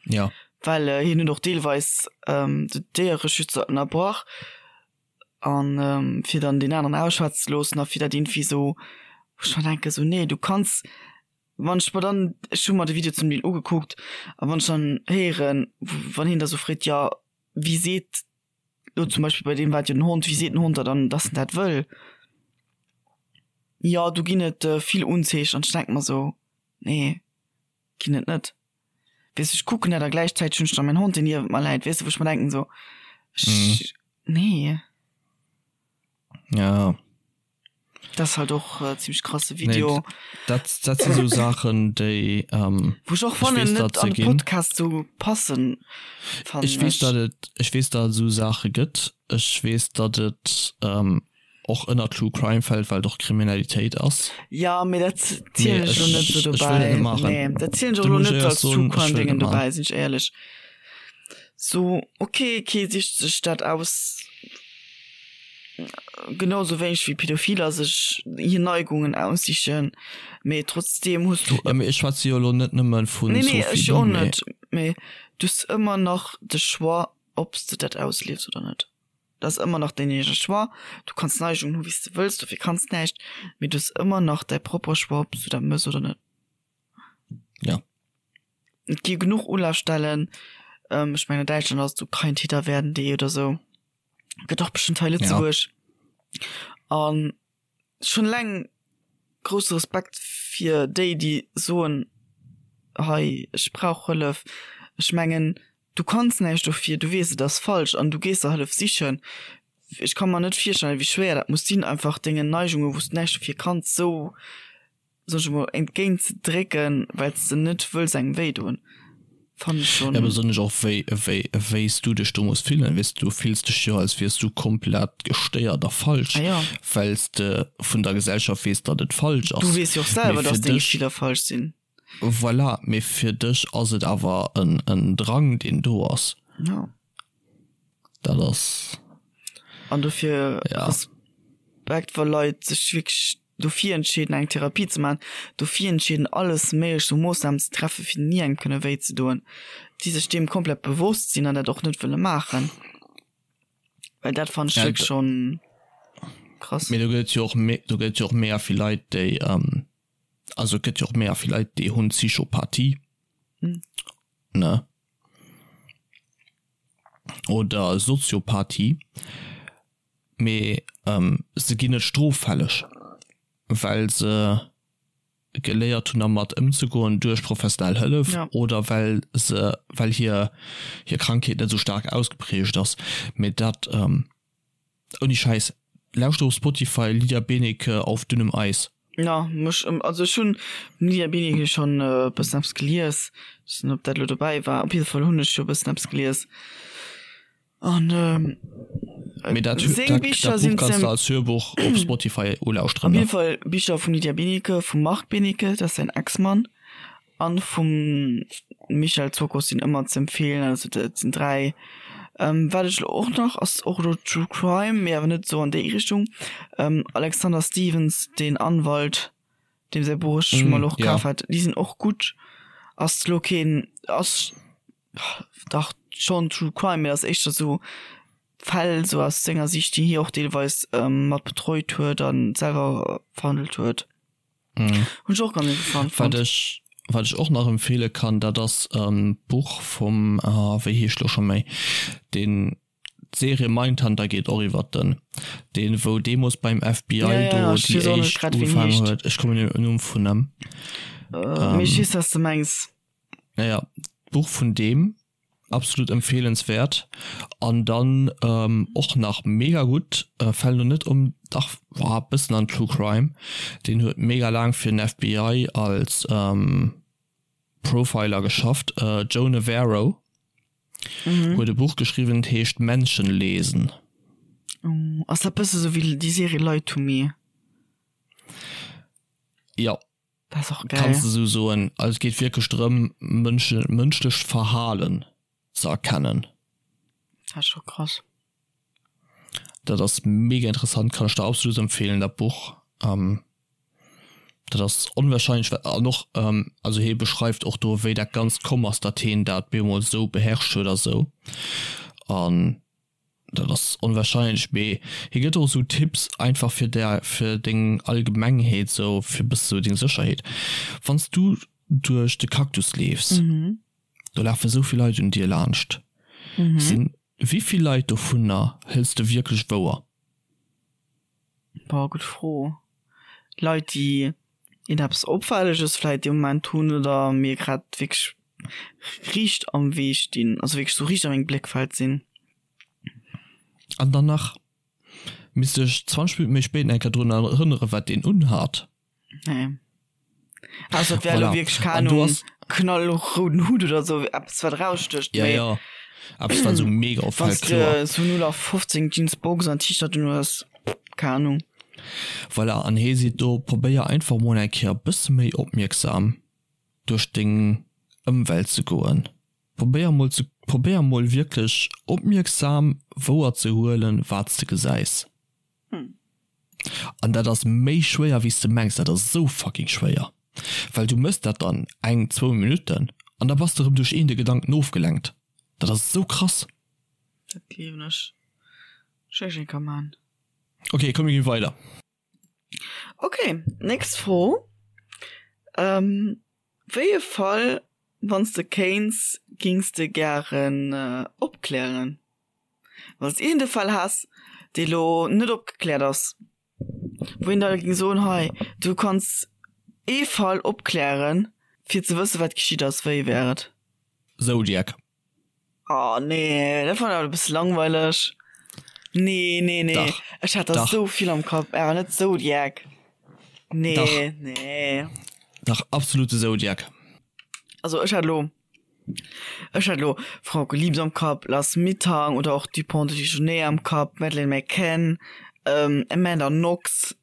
[SPEAKER 1] Ja.
[SPEAKER 2] Well hien huet och deelweis de Déiereschützer ënnerbrach an fir dann deen aneren ausschwätzen ze loossen a fir dat irgendwie esou, wou ech mer denken, esou nee, du kanns, wann ech mer dann, ech hu mer de Video zum Deel ugekuckt, a wann ech dann héieren, wann hien da sou freet, jo wie seet Lo zum Beispill bei deem war et jo den Hond, wéi seet den Hond der dann, dass en dat wëll? Jo, do ginn et vill Unzeechen an ech denke mer sou, nee, ginn et net. Weess de, ech kucken dat a gläichzäiteg hunn ech da mäin Hond, deen niewent mer läit, weess de, wou ech mer denken sou, ech, nee.
[SPEAKER 1] Ja.
[SPEAKER 2] Dat ass halt och äh, ziemlich krasse Video.
[SPEAKER 1] Nee, dat, dat sinn sou Saachen, déi ähm,
[SPEAKER 2] Wou ech och fannen, net an de Podcast sou passen.
[SPEAKER 1] Ech weess, datt et, ech weess, datt et sou Saache gëtt. Ech weess, datt et ähm, och ënner True Crime fält, well et och Kriminalitéit ass.
[SPEAKER 2] Ja, mee dat zielen ech lo net sou dobäi. Nee, dat zielen ech och lo net als True Crime Dingen dobäi, sinn ech éierlech. So, okay, kee sicht sech dat aus. Genau sou wéineg wéi Pädophiler sech hir Neigungen aussichen, mee trotzdeem hues du.
[SPEAKER 1] Ja, mee ech schwätze jo elo net nëmme vun
[SPEAKER 2] Nee, nee, ech jo och net, mee du hues ëmmer nach de Choix, ob s de dat ausliefs oder net. Dat ass ëmmer nach däin eegene Choix. Du kanns Neigungen hu wéi s de wëlls, dofir kanns näischt, mee du hues ëmmer nach däi propere Choix, ob s du dat mëss oder net.
[SPEAKER 1] Ja.
[SPEAKER 2] Et gi genuch Ulafstellen, ech mengen an Däitschland ass et sou kein Täter werden.de oder sou. Gëtt och bestëmmt hei Lëtzebuerg. Ja. An schon leng grousse Respekt fir déi, déi soen, hei ech brauch Hëllef. Ech mengen du kanns näischt dofir, du weess et ass falsch an du gees der Hëllef sichen. Ech ka mer net virstellen, wéi schwéier dat muss sinn, einfach dengen Neigungen, wou s de näischt dofir kanns, sou, soen ech emol, entgéint ze drécken, well s de net wëlls engem wéi doen. Fannen ech schonn.
[SPEAKER 1] Ja, besonnesch och wéi, wéi, wéi s du dech do muss fillen, weess de, du fills dech jo, als wiers du komplett gestéiert a falsch,
[SPEAKER 2] Ah ja.
[SPEAKER 1] well s de vun der Gesellschaft weess, datt et falsch
[SPEAKER 2] Du
[SPEAKER 1] ass.
[SPEAKER 2] weess jo och
[SPEAKER 1] Mee
[SPEAKER 2] selwer,
[SPEAKER 1] fir
[SPEAKER 2] dass deng
[SPEAKER 1] dech,
[SPEAKER 2] Gefiller falsch sinn.
[SPEAKER 1] voilà, mee fir dech ass et awer en, en Drang, deen do ass.
[SPEAKER 2] Ja.
[SPEAKER 1] Dat ass.
[SPEAKER 2] An dofir
[SPEAKER 1] Ja.
[SPEAKER 2] Respekt, wa Leit sech wierklech dofir entscheeden eng Therapie ze maachen, dofir entscheeden alles méiglech u Moossnamen ze treffen, fir ni engem kënne wéi ze doen, déi sech deem komplett bewosst sinn an dat och net wëlle maachen. Well dat fannen ech
[SPEAKER 1] Ja,
[SPEAKER 2] wierklech schonn krass.
[SPEAKER 1] Mee do gëtt et jo och, do gëtt et jo och mega vill Leit, déi, also et gëtt jo och mega vill Leit, déi hunn Psychopathie, ne? Oder Soziopathie. Mee se ginn net stroffälleg, well se geléiert hunn dermat ëmzegoen duerch professionell Hëllef oder well se, well hir hir Krankheet net esou staark ausgeprägt ass. Mee dat, ouni Schäiss, lauschter op Spotify Lydia Benecke Auf dünnem Eis.
[SPEAKER 2] Jo, mech, also ech hunn vum Lydia Benecke schonn e bëssen eppes gelies, ech weess net ob dat elo dobäi war, op jidde Fall hunn ech jo e bëssen eppes gelies. An
[SPEAKER 1] Mee dat,
[SPEAKER 2] seng
[SPEAKER 1] dat,
[SPEAKER 2] Bicher
[SPEAKER 1] dat Buch
[SPEAKER 2] sinn
[SPEAKER 1] kanns
[SPEAKER 2] ze
[SPEAKER 1] de als Hörbuch op Spotify ulauschteren,
[SPEAKER 2] Op
[SPEAKER 1] ne?
[SPEAKER 2] jidde Fall Bicher vum Lydia Benecke, vum Marc Benecke, dat ass säin Ex-Mann, an vum Michel Zokos sinn ëmmer z'empfeelen. Also dat sinn 3. Wat ech elo och nach, ass och elo True Crime, mee awer net esou an déi Richtung, Alexander Stevens, den Anwalt, deem säi Buch ech mol och
[SPEAKER 1] Ja.
[SPEAKER 2] kaf hat, déi sinn och gutt. Ass elo keen, ass Dach schon True Crime, mee ass éischter sou Fäll sou aus senger Sicht, déi hie och deelweis mat betreut huet an selwer verhandelt huet.
[SPEAKER 1] Mhm.
[SPEAKER 2] Hunn ech och ganz interessant
[SPEAKER 1] Wat
[SPEAKER 2] fonnt.
[SPEAKER 1] ech, wat ech och nach empfehle kann, dat ass e Buch vum, wéi heescht lo scho méi, deen, d'Serie Mindhunter geet och iwwert den, deen wou deemoos beim FBI
[SPEAKER 2] Ja, ja,
[SPEAKER 1] do
[SPEAKER 2] ja, ech
[SPEAKER 1] déi
[SPEAKER 2] weess och net
[SPEAKER 1] éischt
[SPEAKER 2] grad wéi en
[SPEAKER 1] ugefaangen
[SPEAKER 2] heescht.
[SPEAKER 1] huet, ech kommen net op den Numm vun em.
[SPEAKER 2] Mee ech weess wat s de mengs.
[SPEAKER 1] Naja, d'Buch vun deem, absolut empfehlenswert. An dann och nach mega gutt, fält lo net um, dach war e bëssen an True Crime, deen huet mega laang fir den FBI als Profiler geschafft, Joe Navarro huet e Buch geschriwwen, et heescht Menschen lesen.
[SPEAKER 2] Oh, ass dat bësse sou wéi déi Serie Lie to Me?
[SPEAKER 1] Jo.
[SPEAKER 2] Dat ass och geil.
[SPEAKER 1] Kanns de sou soen. Also et geet wierklech drëm, Mënschen, mënschlecht Verhalen ze erkennen.
[SPEAKER 2] Dat ass scho krass.
[SPEAKER 1] Dat ass mega interessant, kann ech der absolut empfehlen, dat Buch. Dat ass onwahrscheinlech wat, an och, also hie beschreift och do wéi dat Ganzt komm ass, datt hien dat bemol sou beherrscht huet a sou. An Dat ass onwahrscheinlech, mee hie gëtt och esou Tipps einfach fir der fir deng Allgemengheet sou fir bësse sou deng Sécherheet. Wann s du duerch de Cactus leefs, do lafe sou vill Leit un dir laanscht. Sinn wéi vill Leit dovunner hëls de wierklech wouer?
[SPEAKER 2] Boah, gutt Fro. Leit déi een eppes Opfälleges vläit dee Moment hunn oder mir grad wierklech riicht am Wee stinn, also wierklech sou riicht a mengem Bléckfeld sinn.
[SPEAKER 1] An dann nach misst ech 20 Minutten méi spéit nach eng Kéier drun erënneren, wat deen unhat.
[SPEAKER 2] Nee. Ausser et wär elo
[SPEAKER 1] Voilà.
[SPEAKER 2] wierklech, keng
[SPEAKER 1] An du
[SPEAKER 2] Ahnung,
[SPEAKER 1] ass.
[SPEAKER 2] knallrouden Hutt oder sou, eppes wat erausstécht,
[SPEAKER 1] Ja,
[SPEAKER 2] mee
[SPEAKER 1] ja. Eppes wat sou mega
[SPEAKER 2] wann
[SPEAKER 1] opfält,
[SPEAKER 2] s de
[SPEAKER 1] kloer.
[SPEAKER 2] sou 0815 Jeans, Box an T-Shirt un hues, keng Ahnung.
[SPEAKER 1] Voilà, an hee seet do, probéier einfach mol eng Kéier e bësse méi opmierksam duerch deng Ëmwelt ze goen. Probéier mol ze, probéier mol wierklech opmierksam wouer ze huelen, wat s de gesäis. An dat ass méi schwéier wéi s de mengs, dat ass esou fucking schwéier, well du mëss dat dann eng, zwou Minutten an da bass de erëm duerch een de Gedanken ofgelenkt. Dat ass esou krass.
[SPEAKER 2] Dat gleewen ech. Ech eng ka man.
[SPEAKER 1] Ok, komm mir ginn weider.
[SPEAKER 2] Ok, nächst Fro. Ähm, wéi e Fall, wann s de kéints, gings de gären opklären? Wann s iergend e Fall häss, dee lo net opgekläert ass, wou een da géing soen, hei, du kanns ee Fall opklären, fir ze wësse wat geschitt ass, wéi wär et?
[SPEAKER 1] Zodiac.
[SPEAKER 2] Oh nee, dat fannen ech awer e bësse langweileg. Nee, nee, nee.
[SPEAKER 1] Dach.
[SPEAKER 2] Ech hat der
[SPEAKER 1] Dach.
[SPEAKER 2] sou vill am Kapp, awer net Zodiac. Nee,
[SPEAKER 1] Dach.
[SPEAKER 2] nee.
[SPEAKER 1] Dach, absolut de Zodiac.
[SPEAKER 2] Also ech hat lo, ech hat lo Frauke Liebs am Kapp, Lars Mittank oder och Dupont de Ligonnès am Kapp, Madeleine McCann, ähm, Amanda Knox.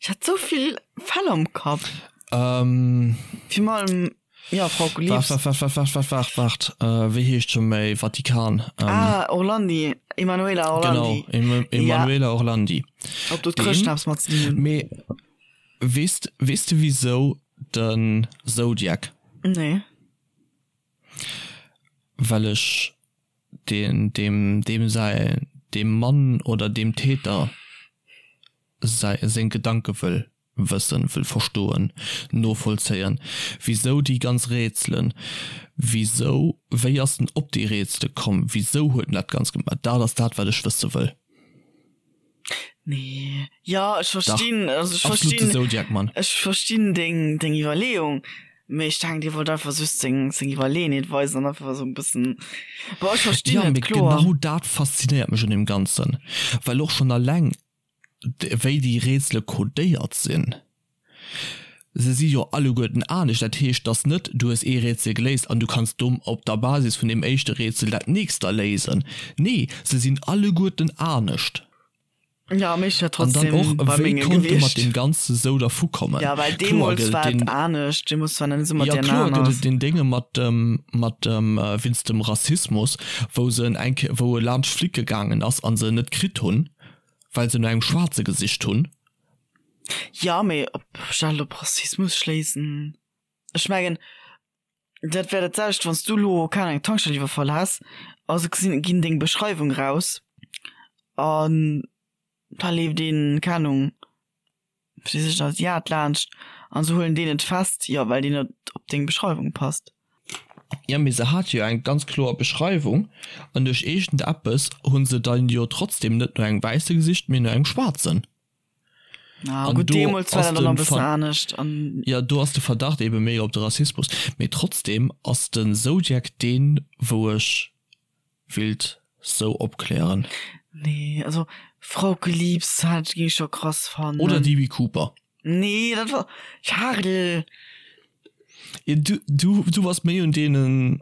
[SPEAKER 2] Ech hat sou vill Fäll am Kapp.
[SPEAKER 1] Ähm.
[SPEAKER 2] Virun allem, ja, Frauke Liebs.
[SPEAKER 1] Waart, waart, waart, waart, waart, waart, waart, äh, wéi heescht scho méi Vatikan?
[SPEAKER 2] Ähm. Ah, Orlandi, Emanuela Orlandi.
[SPEAKER 1] Genau, Emanuela Orlandi.
[SPEAKER 2] Ob do d'Chrëschten eppes mat ze dinn hunn?
[SPEAKER 1] Mee weess, weess de wisou de Zodiac?
[SPEAKER 2] Nee.
[SPEAKER 1] Well ech deen, deem, deem säi, deem Mann oder deem Täter säi, seng Gedanke wëll wëssen, wëll verstoen, novollzéien. Wisou déi ganz Rätselen? Wisou, wéi ass en op déi Rätsele komm? Wisou huet en dat Ganzt gemaach? Dat ass dat, wat ech wësse wëll.
[SPEAKER 2] Nee, jo, ech
[SPEAKER 1] Dach,
[SPEAKER 2] verstinn, also ech
[SPEAKER 1] absolut de
[SPEAKER 2] verstinn,
[SPEAKER 1] Zodiac Mann.
[SPEAKER 2] ech verstinn deng, deng Iwwerleeung, mee ech denken, dir wollt einfach just seng, seng Iwwerleeënheet weisen an einfach esou e bëssen, bon, ech verstinn
[SPEAKER 1] Jo,
[SPEAKER 2] et,
[SPEAKER 1] mee
[SPEAKER 2] kloer.
[SPEAKER 1] genau dat faszinéiert mech un deem Ganzen, well och schonn alleng wéi déi Rätsele codéiert sinn, se si jo alleguerten anescht, dat heescht, dass net du hues ee Rätsel geléist an du kanns do op der Basis vun deem éischte Rätsel dat nächst da léisen. Nee, se sinn alleguerten anescht.
[SPEAKER 2] Ja, mee ech wär
[SPEAKER 1] An dann
[SPEAKER 2] trotzdem
[SPEAKER 1] och,
[SPEAKER 2] bei
[SPEAKER 1] wéi
[SPEAKER 2] menge
[SPEAKER 1] konnt e mat
[SPEAKER 2] gewiescht.
[SPEAKER 1] deem Ganze sou dervu kommen?
[SPEAKER 2] Ja, well
[SPEAKER 1] Kloer
[SPEAKER 2] deemools
[SPEAKER 1] gëtt et
[SPEAKER 2] war et
[SPEAKER 1] deen,
[SPEAKER 2] anescht, deemools war net esou mat
[SPEAKER 1] jo
[SPEAKER 2] DNA
[SPEAKER 1] kloer
[SPEAKER 2] an
[SPEAKER 1] gëtt
[SPEAKER 2] alles.
[SPEAKER 1] et deen Dénge mat dem, mat dem, wéinst dem Rassismus, wou se en eng Kéier, wou e laanscht flicke gaangen ass an se en net kritt hunn, well se no engem Schwaarze gesicht hunn.
[SPEAKER 2] Ja, mee ob ech dat elo op Rassismus schléissen? Ech mengen, dat wär dat selwecht, wann s du elo, keng Ahnung, eng Tankstell iwwerfall häss a se gesinn, ginn deng Beschreiwung raus an da leeft een, keng Ahnung, wat weess ech, en Asiat laanscht an se huelen deen net fest, jo, well deen net op deng Beschreiwung passt.
[SPEAKER 1] Jo, mee se hate jo eng ganz kloer Beschreiwung an duerch iergendeppes hu se dann jo trotzdem net no engem Wäisse gesicht, mee no engem Schwaarzen.
[SPEAKER 2] Ah,
[SPEAKER 1] An
[SPEAKER 2] gutt,
[SPEAKER 1] do
[SPEAKER 2] deemools war
[SPEAKER 1] ass
[SPEAKER 2] dat dann nach
[SPEAKER 1] de
[SPEAKER 2] e bëssen
[SPEAKER 1] Ver
[SPEAKER 2] anescht an.
[SPEAKER 1] Jo, do ass de Verdacht ebe méi op de Rassismus. Mee trotzdem ass den Zodiac deen, wou ech willt sou opklären.
[SPEAKER 2] Nee, also Frauke Liebs hat ging ech scho krass fannen.
[SPEAKER 1] Oder DB Cooper.
[SPEAKER 2] Nee, dat war Charel.
[SPEAKER 1] Ja, du, du, du bass méi un deenen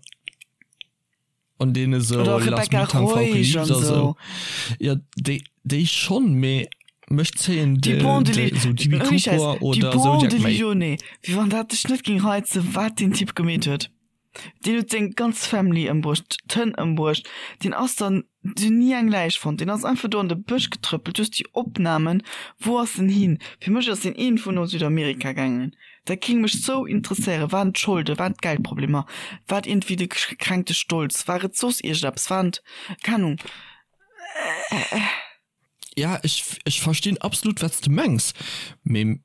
[SPEAKER 1] an deene sou
[SPEAKER 2] Oder
[SPEAKER 1] Lars
[SPEAKER 2] Rebecca
[SPEAKER 1] Mittank, Frauke
[SPEAKER 2] Reusch
[SPEAKER 1] Liebs
[SPEAKER 2] an
[SPEAKER 1] a
[SPEAKER 2] sou.
[SPEAKER 1] sou. Ja, déi, déi schonn, mee mech zéien de,
[SPEAKER 2] Dupont de
[SPEAKER 1] de,
[SPEAKER 2] Li-
[SPEAKER 1] sou DB
[SPEAKER 2] Ouni Schäiss,
[SPEAKER 1] Cooper oder
[SPEAKER 2] Dupont
[SPEAKER 1] Zodiac
[SPEAKER 2] de
[SPEAKER 1] méi.
[SPEAKER 2] Ligonnès. Wéi wann dat dech net ging reizen, wat deen Typ gemeet huet. Deen huet seng ganz Family ëmbruecht, d'Hënn ëmbruecht. Deen ass dann, se hunn ni eng Läich fonnt, deen ass einfach do an de Bësch getrëppelt. Du hues déi Opnamen, wou ass en hin? Fir mech ass deen iergendwou no Südamerika gaangen. Dat géing mech sou interesséieren. Waren et d'Scholden, waren et d'Geldproblemer, war et iergendwéi de gekränkte Stolz, war et soss iergendeppes, waren et, keng Ahnung.
[SPEAKER 1] Ja, ech, ech verstinn absolut wat s de mengs, mee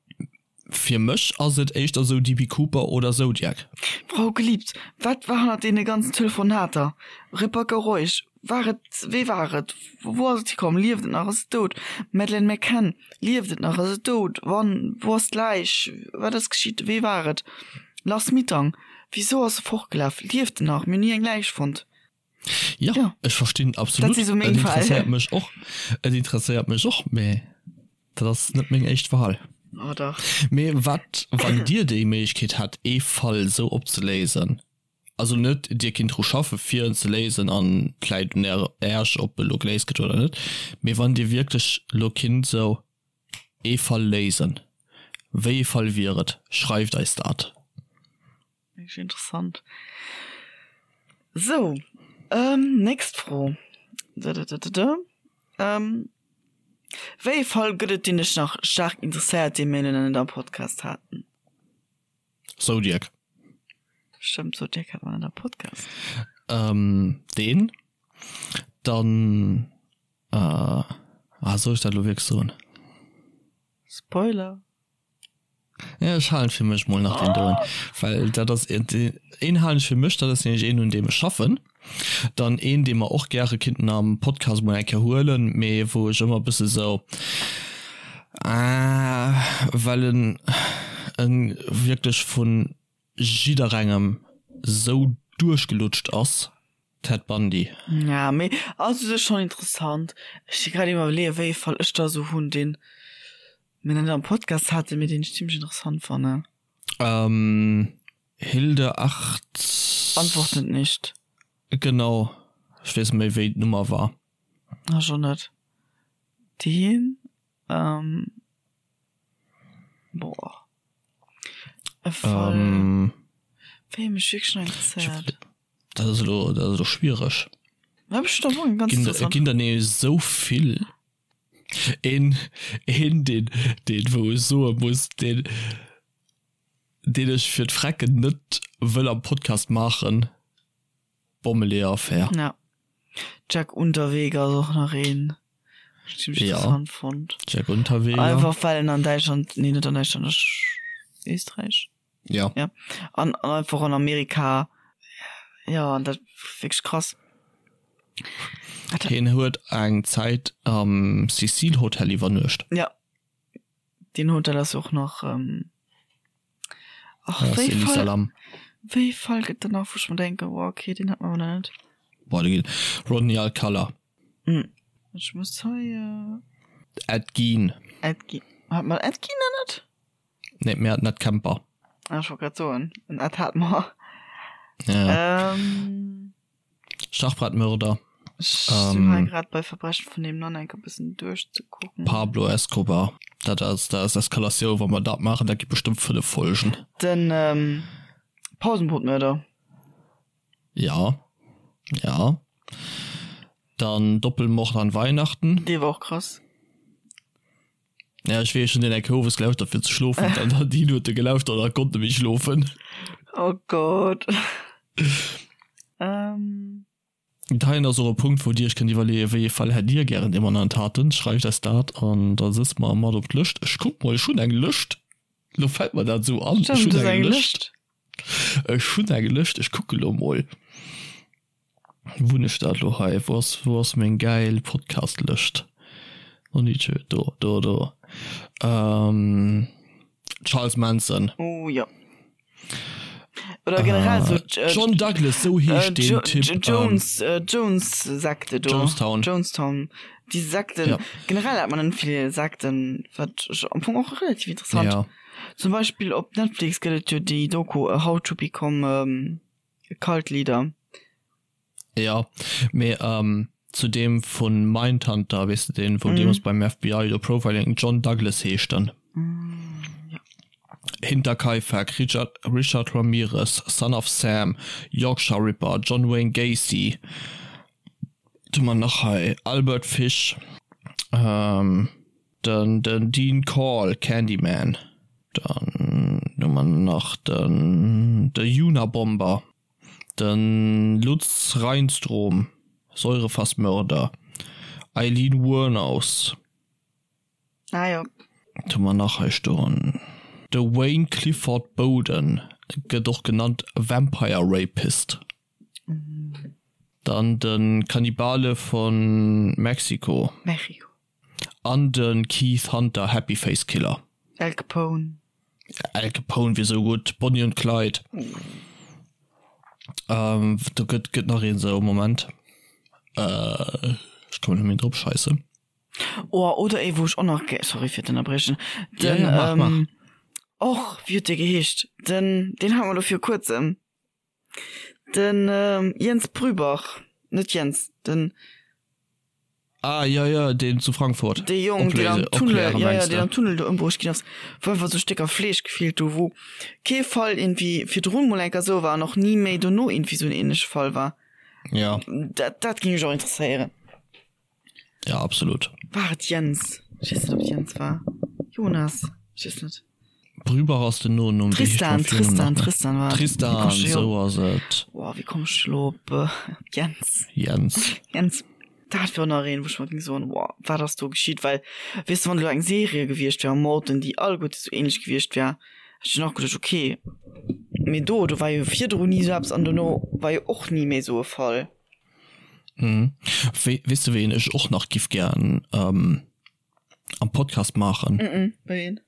[SPEAKER 1] fir mech ass et éischter sou DB Cooper oder Zodiac.
[SPEAKER 2] Frau Geliebt, wat war hannert deene ganzen Telefonater? Rebecca Reusch, War et, wee war et, wou ass et hikomm, lieft et nach, ass et dout? Madeleine McCann, Lieft et nach, ass et dout? Wann, wou ass d'Läich, wat ass geschitt, wee war et? Lars Mittank, Wisou ass e fortgelaf, lieft en nach, mir hunn ni eng Läich fonnt.
[SPEAKER 1] Ja,
[SPEAKER 2] Ja.
[SPEAKER 1] ech verstinn
[SPEAKER 2] Dat
[SPEAKER 1] absolut.
[SPEAKER 2] si sou meng
[SPEAKER 1] Et
[SPEAKER 2] Fäll.
[SPEAKER 1] interesséiert mech och. Et interesséiert mech och, mee dat ass net meng éischt Wahl.
[SPEAKER 2] Oh dach.
[SPEAKER 1] Mee wat, wann Dir déi Méiglechkeet hätt, ee Fall sou opzeléisen, also net Dir kinnt dru schaffe fir en ze léisen an et läit un Äerch ob e lo geléist gëtt oder net, mee wann Dir wierklech lo kinnt sou ee Fall léisen, wéi ee Fall wier et? Schreift eis dat.
[SPEAKER 2] Wierklech interessant. Sou, ähm, nächst Fro. Ähm, wéi ee Fall gëtt et, deen dech nach staark interesséiert, dee mir nach net am Podcast haten?
[SPEAKER 1] Zodiac.
[SPEAKER 2] Stëmmt, Zodiac hat mer net am Podcast.
[SPEAKER 1] Ähm, deen. Dann, äh, ah, soll ech dat elo wierklech soen?
[SPEAKER 2] Spoiler.
[SPEAKER 1] Ja, ech halen fir mech mol nach den doen, well dat ass een halen ech fir mech, dat ass nämlech een un deem ech schaffen, dann een dee mer och gäre kinnten am Podcast mol eng Kéier huelen, mee wou ech ëmmer e bësse sou ah, well en en wierklech vu jidderengem sou duerchgelutscht ass. Ted Bundy.
[SPEAKER 2] Ja, mee ass u sech schonn interessant. Ech si grad iwwerleeën, wéi ee Fall ech da sou hunn, deen mir nach net am Podcast haten, mee deen ech zimmlech interessant fannen.
[SPEAKER 1] Ähm, Hilde 8.
[SPEAKER 2] Antwortet nicht.
[SPEAKER 1] Genau, ech weess net méi, wéi d'Nummer war.
[SPEAKER 2] Ech och net. Deen, ähm, boah. E Fall, wéi ee mech wierklech nach interesséiert.
[SPEAKER 1] Dat ass elo, dat ass elo schwiereg.
[SPEAKER 2] Ja, ech da wohl
[SPEAKER 1] ganz Ginn, ginn der nee esou vill. Een, een deen, deen wou ech soe muss, deen, deen ech fir d'Frecken net wëll am Podcast maachen, Bommeleeër-Affär.
[SPEAKER 2] Ja. Jack Unterweger ass och nach een, ech zimmlech
[SPEAKER 1] Ja.
[SPEAKER 2] interessant fonnt.
[SPEAKER 1] Jack Unterweger.
[SPEAKER 2] Einfach well en an Däitschland, nee net an Däitschland, ech Éisträich?
[SPEAKER 1] Ja.
[SPEAKER 2] Ja. An, an einfach an Amerika. Ja, an dat wierklech krass.
[SPEAKER 1] Hien huet eng Zäit am Cecil Hotel iwwernuecht.
[SPEAKER 2] Ja. Deen Hotel ass och nach. Ähm, ach,
[SPEAKER 1] Ja,
[SPEAKER 2] wéi
[SPEAKER 1] Célie
[SPEAKER 2] Fall,
[SPEAKER 1] Salam.
[SPEAKER 2] wéi Fall gëtt dann nach, wou ech mer denken, oh, okay, deen hat mer awer nach net.
[SPEAKER 1] Boah, do ginn Rodney Alcala.
[SPEAKER 2] Hm. Ech muss hei. Äh,
[SPEAKER 1] Ed Gein.
[SPEAKER 2] Ed Gein. Hat mer Ed Gein nach net?
[SPEAKER 1] Nee, mir haten Ed Kemper.
[SPEAKER 2] Ah, ech wollt grad soen, en Ed hat mer.
[SPEAKER 1] Ja.
[SPEAKER 2] Ähm,
[SPEAKER 1] Schachbrettmörder.
[SPEAKER 2] ech sinn hei grad bei Verbrechen vun nebenan enk e bëssen duerchzekucken.
[SPEAKER 1] Pablo Escobar. Dat ass, dat ass Eskalatioun, wa mer dat maachen, dat gi bestëmmt 5 Folgen.
[SPEAKER 2] Den ähm, Pausenbrotmörder.
[SPEAKER 1] Ja. Ja. Dann Doppelmord an Weihnachten.
[SPEAKER 2] Dee war och krass.
[SPEAKER 1] Ja, ech weess, ech hunn deen eng Kéier owes gelauschtert fir ze schlofen, dann hat hien huet e gelauschtert a konnt net méi schlofen.
[SPEAKER 2] Oh Gott. Ähm.
[SPEAKER 1] Heien ass och e Punkt, wou Dir Iech kënnt iwwerleeën, wéi ee Fall hätt Dir gären, dee mer nach net haten. Schreift eis dat an da sëtze mer mat op d'Lëscht. Ech kuck mol, ech hunn eng Lëscht. Lo fält mer dat esou an. Ech
[SPEAKER 2] Stimmt,
[SPEAKER 1] hunn
[SPEAKER 2] du hues
[SPEAKER 1] eng
[SPEAKER 2] eng
[SPEAKER 1] Lëscht.
[SPEAKER 2] Lëscht.
[SPEAKER 1] Ech hunn eng Lëscht, ech kucke lo mol. Wou hunn ech dat elo hei? Wou ass, wou ass meng gäil Podcast-Lëscht? Onice, do, do, do. Ähm, Charles Manson.
[SPEAKER 2] Oh jo. Oder generell so
[SPEAKER 1] äh, John Douglas, sou heescht
[SPEAKER 2] äh,
[SPEAKER 1] deen
[SPEAKER 2] jo
[SPEAKER 1] Typ.
[SPEAKER 2] Jo Jones, ähm, Jones Sekte do.
[SPEAKER 1] Jonestown.
[SPEAKER 2] Jonestown. Déi Sekten.
[SPEAKER 1] Ja.
[SPEAKER 2] Generell hat man net vill Sekten, wat ech am Fong och relativ interessant.
[SPEAKER 1] Ja.
[SPEAKER 2] Zum Beispill op Netflix gëtt et jo déi Doku How to Become ähm, Cult Leader.
[SPEAKER 1] Ja, mee ähm, zu deem vun Mindhunter, weess de deen, wou deemools beim FBI do Profiling, John Douglas heescht en. Hinterkaifeck, Richard, Richard Ramirez, Son of Sam, Yorkshire Ripper, John Wayne Gacy, wat hu mer nach hei, Albert Fish, ähm, Den den Dean Corll, Candyman. Dann hu mer nach den de Unabomber, de Lutz Reinstrom, Säurefassmörder, Aileen Wuornos.
[SPEAKER 2] Ah jo.
[SPEAKER 1] Wat hu mer nach hei stoen? De Wayne Clifford Boden, gëtt och genannt Vampire Rapist. Dann de Kannibale von Mexiko.
[SPEAKER 2] Mexico.
[SPEAKER 1] An de Keith Hunter, Happy Face Killer.
[SPEAKER 2] Al Capone.
[SPEAKER 1] Al Capone wier sou gutt. Bonnie und Clyde. Ähm, do gëtt, gëtt nach een sou, Moment. Äh, ech kommen net méi drop, scheisse.
[SPEAKER 2] Oh, oder ee wou ech och nach gär, sorry fir d'Ënnerbriechen,
[SPEAKER 1] Ja,
[SPEAKER 2] den,
[SPEAKER 1] ja, mach, mach.
[SPEAKER 2] ähm, och, wéi huet dee geheescht? Den, deen hat mer elo viru kuerzem. Den Jens Brübach, net Jens, den.
[SPEAKER 1] Ah jo jo, deen zu Frankfurt.
[SPEAKER 2] Dee Jong, deen am Tunnel, jo jo, deen am Tunnel do ëmbruecht ginn ass, wou einfach sou Stécker Fleesch gefeelt hu, wou kee Fall iergendwéi virdrun mol eng Kéier sou war an och ni méi dono iergendwéi sou en ähnleche Fall war.
[SPEAKER 1] Jo.
[SPEAKER 2] Dat, dat géing mech och interesséieren.
[SPEAKER 1] Ja, absolut.
[SPEAKER 2] War et Jens? Ech weess net, ob et Jens war. Jonas? Ech weess net.
[SPEAKER 1] Brübach ass den Nonumm.
[SPEAKER 2] Tristan, Tristan, Tristan war et.
[SPEAKER 1] Tristan, sou ass et.
[SPEAKER 2] Boah, wéi komm ech elo op Jens?
[SPEAKER 1] Jens.
[SPEAKER 2] Jens. Dat wär och nach een, wou ech mer géing soen, Boah, wat ass do geschitt? Well, weess de, wann elo eng Serie gewiescht wär, Morden, déi alleguerte sou ähnlech gewiescht wär, hätt ech dunn och geduecht, okay. Mee do, do war jo virdrun ni sou eppes an dono war jo och ni méi sou e Fall.
[SPEAKER 1] Mhm. Wéi, weess de ween ech och nach giff gären ähm, am Podcast maachen?
[SPEAKER 2] Mm -mm, wéi een?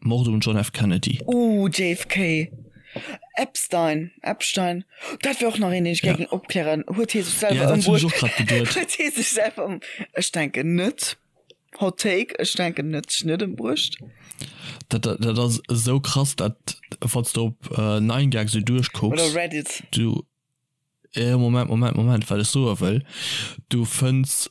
[SPEAKER 1] Mord um John F. Kennedy.
[SPEAKER 2] Uh, JFK. Epstein, Epstein, dat wär och nach een, deen ech gär géing opklären. Huet hie sech
[SPEAKER 1] Ja,
[SPEAKER 2] selwer
[SPEAKER 1] dat hunn ech
[SPEAKER 2] ëmbruecht?
[SPEAKER 1] och grad geduet.
[SPEAKER 2] Huet hie sech selwer ëm. Ech denken net. Hot Take, ech denken net, sech net ëmbruecht.
[SPEAKER 1] Dat, dat, dat ass esou krass, dat wann s de op 9gag esou duerchkucks.
[SPEAKER 2] Oder Reddit.
[SPEAKER 1] Du, eh, Moment, Moment, Moment, wat ech soe wëll, du fënns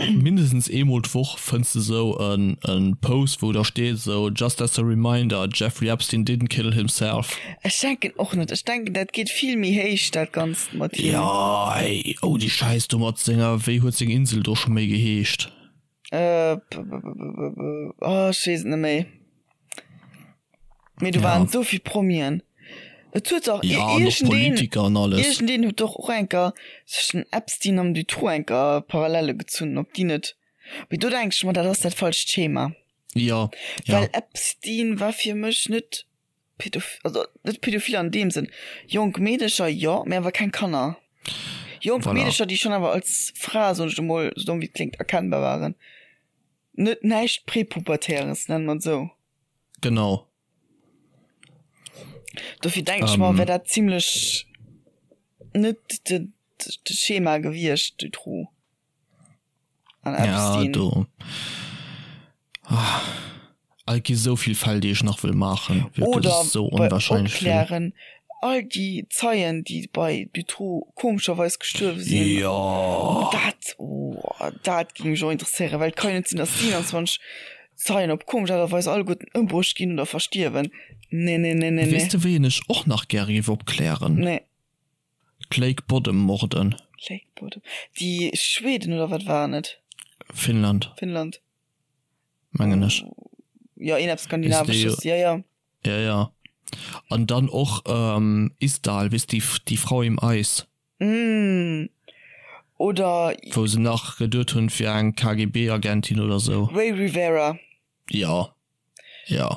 [SPEAKER 1] mindestens eemol d'Woch fënns de esou en, en Post, wou da steet esou, Just as a reminder, Jeffrey Epstein didn't kill himself.
[SPEAKER 2] Ech denken och net. Ech denken, dat geet vill méi héich, dat Ganzt mat him.
[SPEAKER 1] Jo, ey, oh déi Schäiss do mat senger, wéi huet seng Insel do scho méi geheescht?
[SPEAKER 2] Äh, oh, ech weess et net méi. Mee do waren esou vill Promien. Et huet dach
[SPEAKER 1] Ja, an och Politiker an alles.
[SPEAKER 2] Iergendeen huet doch och enker zwëschen den Epstein an Dutroux enker Parallele gezunn, ob déi net. Mee do denk ech mer, dat ass dat falscht Schema.
[SPEAKER 1] Ja,
[SPEAKER 2] ja. Well Epstein war fir mech net Pädof also net pädophil an deem Sënn. Jonk Meedecher jo, mee awer keng Kanner. Jonk
[SPEAKER 1] Voilà.
[SPEAKER 2] Meedecher, déi schonn awer als Fra, soen ech elo mol, sou domm wéi et kléngt, erkennbar waren. Net näischt Prepubertäres, nenne mer et esou.
[SPEAKER 1] Genau.
[SPEAKER 2] Dofir denken ech mer, wär dat zimlech net de de Schema gewiescht, Dutroux an
[SPEAKER 1] Ja,
[SPEAKER 2] Epstein.
[SPEAKER 1] do. Ah, et gi sou vill Fäll, déi ech nach wëll maachen. Wierklech,
[SPEAKER 2] Oder
[SPEAKER 1] et ass sou
[SPEAKER 2] bei
[SPEAKER 1] onwahrscheinlech vill.
[SPEAKER 2] Opklären, all déi Zeien, déi bei Dutroux komescherweis gestuerwe sinn.
[SPEAKER 1] Jo.
[SPEAKER 2] Dat, oh, dat géing mech och interesséieren, well et ka jo net sinn, datt 27 Zeien op komesch Aart a Weis alleguerten ëmbruecht ginn oder verstierwen. Nee, nee, nee, nee,
[SPEAKER 1] Weess
[SPEAKER 2] nee.
[SPEAKER 1] de, wéi een ech och nach gäre géif opklären?
[SPEAKER 2] Nee.
[SPEAKER 1] D'Lake Bodom Morden.
[SPEAKER 2] Lake Bodom. Déi Schweden oder wat waren et?
[SPEAKER 1] Finnland.
[SPEAKER 2] Finnland.
[SPEAKER 1] Mengen ech.
[SPEAKER 2] Jo, een eppes Skandinavesches, jo, jo.
[SPEAKER 1] Ja, ja. An dann och Isdal, weess de, déi Frau im Eis.
[SPEAKER 2] Mm. Oder.
[SPEAKER 1] Wou se nach geduet hunn, et wier eng KGB-Agentin oder sou.
[SPEAKER 2] Ray Rivera.
[SPEAKER 1] Jo, jo.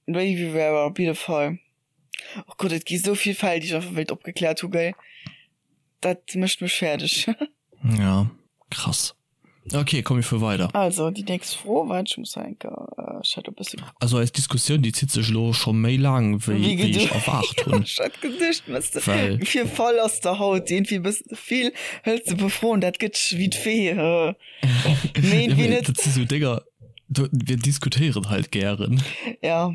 [SPEAKER 2] Ray Rivera, op jidde Fall. Oh Gott, et gi sou vill Fäll, déi ech einfach wéilt opgekläert hu, gell. Dat mécht mech fäerdeg.
[SPEAKER 1] Ja, krass. Ok, komm mir fuere weider.
[SPEAKER 2] Also, déi nächst Fro, waart, ech muss hei eng Kéier, ech hat e bësse.
[SPEAKER 1] Also eis Diskussioun, déi zitt sech elo scho méi laang, wéi wéi ech erwaart hunn.
[SPEAKER 2] Ech hat geduecht, wëss de,
[SPEAKER 1] Well.
[SPEAKER 2] wéi vill Fall ass der haut? Iergendwéi e bëssen ze vill. Hëls de e puer Froen, dat gëtt wéi d'Fee. Mee
[SPEAKER 1] Ja,
[SPEAKER 2] iergendwéi
[SPEAKER 1] mee
[SPEAKER 2] net.
[SPEAKER 1] dat si sou Dénger, do, mir diskutéieren halt gären.
[SPEAKER 2] Ja.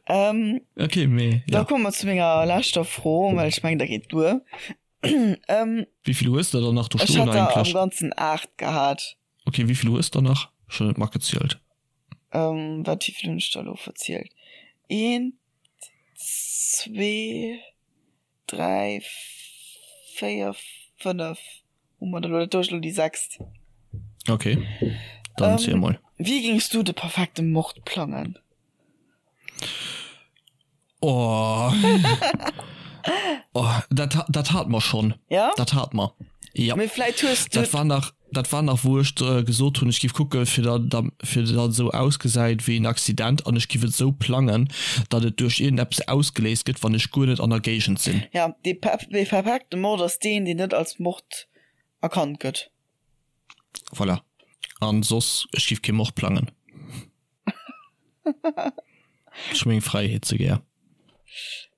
[SPEAKER 2] Ähm,
[SPEAKER 1] Ok, mee
[SPEAKER 2] da
[SPEAKER 1] ja.
[SPEAKER 2] komme mer zu menger leschter Fro, well ech mengen, da geet duer. Ähm,
[SPEAKER 1] Wéi vill hues de der nach do
[SPEAKER 2] ech
[SPEAKER 1] stoen
[SPEAKER 2] hat der am
[SPEAKER 1] eigentlech?
[SPEAKER 2] Ganzen 8 gehat.
[SPEAKER 1] Ok, wéi vill hues de der nach? Ech hunn net matgezielt.
[SPEAKER 2] Ähm, wat, wéi vill hunn ech der elo verzielt? Eent, zwee, dräi, véier, fënnef hu mer der elo. Dat do ass elo déi sechst.
[SPEAKER 1] Ok, dann ziel
[SPEAKER 2] Ähm,
[SPEAKER 1] mol.
[SPEAKER 2] wéi géings du de perfekte Mord plangen?
[SPEAKER 1] Oh. oh, dat, dat hat mer schon.
[SPEAKER 2] Ja?
[SPEAKER 1] Dat hat mer. Ja.
[SPEAKER 2] Mee vläit hues du.
[SPEAKER 1] Dat war nach, dat war nach wou ech äh, gesot hunn, ech giff kucke fir da, da, fir dat esou ausgesäit wéi en Accident an ech giff et esou plangen, datt et duerch iergendeppes ausgeléist gëtt, wann ech guer net an der Géigend sinn.
[SPEAKER 2] Ja, dee perfekte Mord ass deen, deen net als Mord erkannt gëtt.
[SPEAKER 1] Voilà. An soss, ech giff kee Mord plangen. Ech hu meng Fräiheet ze gär.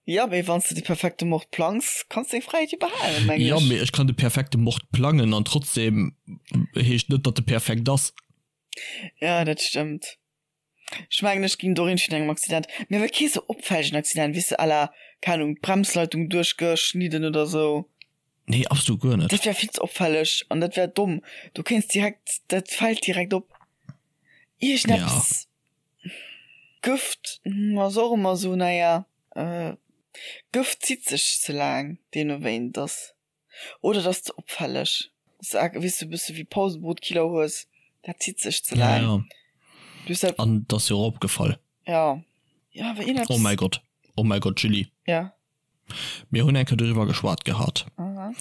[SPEAKER 2] Ja, mee wann s de de perfekte Mord plangs, kanns deng Fräiheet jo behalen, mengen
[SPEAKER 1] Ja,
[SPEAKER 2] ech.
[SPEAKER 1] mee ech kann de perfekte Mord plangen an trotzdem heescht net, datt e perfekt ass.
[SPEAKER 2] Ja, dat stëmmt. Ech mengen, ech ging do iergendwéi engem Accident, mee awer kee sou opfällegen Accident, weess de, à la, keng Ahnung, d'Bremsleitung duerchgeschnidden oder sou.
[SPEAKER 1] Nee, absolut guer net.
[SPEAKER 2] Dat wär vill ze opfälleg an dat wär domm. Du kéints direkt, dat fält direkt op. Iergendeppes.
[SPEAKER 1] Ja.
[SPEAKER 2] Gëft ass och ëmmer sou, naja, Gëft zitt sech ze laang, deemno wéi een et ass. Oder et ass ze opfälleg. Weess du, e bësse wéi Pausenbrotkiller hues, dat zitt sech ze laang.
[SPEAKER 1] Ja, ja.
[SPEAKER 2] Du hues dat.
[SPEAKER 1] An et ass jo och opgefall.
[SPEAKER 2] Ja. Ja, awer iergendeppes.
[SPEAKER 1] Oh mäi Gott, oh mäi Gott, Julie.
[SPEAKER 2] Ja.
[SPEAKER 1] Mir hunn eng Kéier doriwwer geschwat gehat.
[SPEAKER 2] Aha.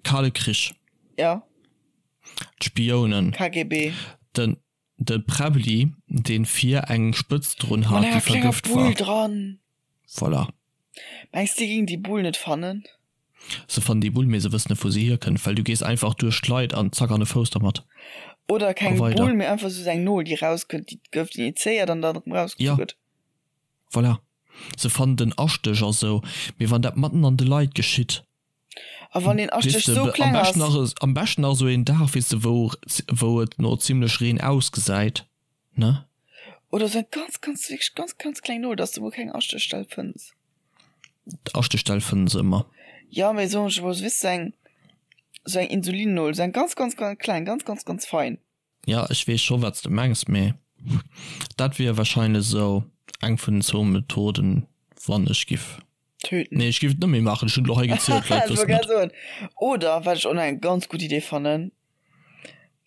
[SPEAKER 1] Kale Krich.
[SPEAKER 2] Ja.
[SPEAKER 1] D'Spiounen.
[SPEAKER 2] KGB.
[SPEAKER 1] Den, de Präbbli, deen vir eng Spëtz drun
[SPEAKER 2] Mat
[SPEAKER 1] hat, déi
[SPEAKER 2] enger klenger
[SPEAKER 1] vergëft
[SPEAKER 2] Bull
[SPEAKER 1] war.
[SPEAKER 2] dran.
[SPEAKER 1] Voilà.
[SPEAKER 2] Mengs de, déi géingen déi Bull net fannen?
[SPEAKER 1] Se fannen déi Bull, mee se wëssen net, wou se hierkënnt, well du gees einfach duerch d'Leit an zack an e Fouss dermat.
[SPEAKER 2] Oder
[SPEAKER 1] A
[SPEAKER 2] keng
[SPEAKER 1] weider.
[SPEAKER 2] Bull, mee einfach sou eng Nol, déi rauskënnt, déi d'Gëft injizéiert an dann erëm rausgezu
[SPEAKER 1] Ja.
[SPEAKER 2] gëtt.
[SPEAKER 1] Voilà. Se fannen den Astéch a sou, mee wann dat matten an de Leit geschitt.
[SPEAKER 2] A wann deen Astéch sou kleng
[SPEAKER 1] ass. Am beschten nach sou een Dag, weess de, wou wou et no zimlech Reen ausgesäit, ne?
[SPEAKER 2] Oder sou eng ganz, ganz, wierklech ganz, ganz kleng Nol, dass de mol keng Astéchstell fënns.
[SPEAKER 1] D'Astéchstell fënne se ëmmer.
[SPEAKER 2] Jo, mee soen ech emol, weess de, sou eng, sou eng Insulinnol, sou eng ganz, ganz, ganz kleng, ganz, ganz, ganz fein.
[SPEAKER 1] Ja, ech weess scho wat s de mengs, mee dat wier wahrscheinlech esou eng vun den zwou Methoden, wann ech giff.
[SPEAKER 2] Töten.
[SPEAKER 1] Nee, ech giff et net méi maachen, ech hunn et elo hei gezielt, d'Leit
[SPEAKER 2] Ech wollt
[SPEAKER 1] wëssen
[SPEAKER 2] grad
[SPEAKER 1] et.
[SPEAKER 2] soen. Oder wat ech och nach eng ganz gutt Idee fannen,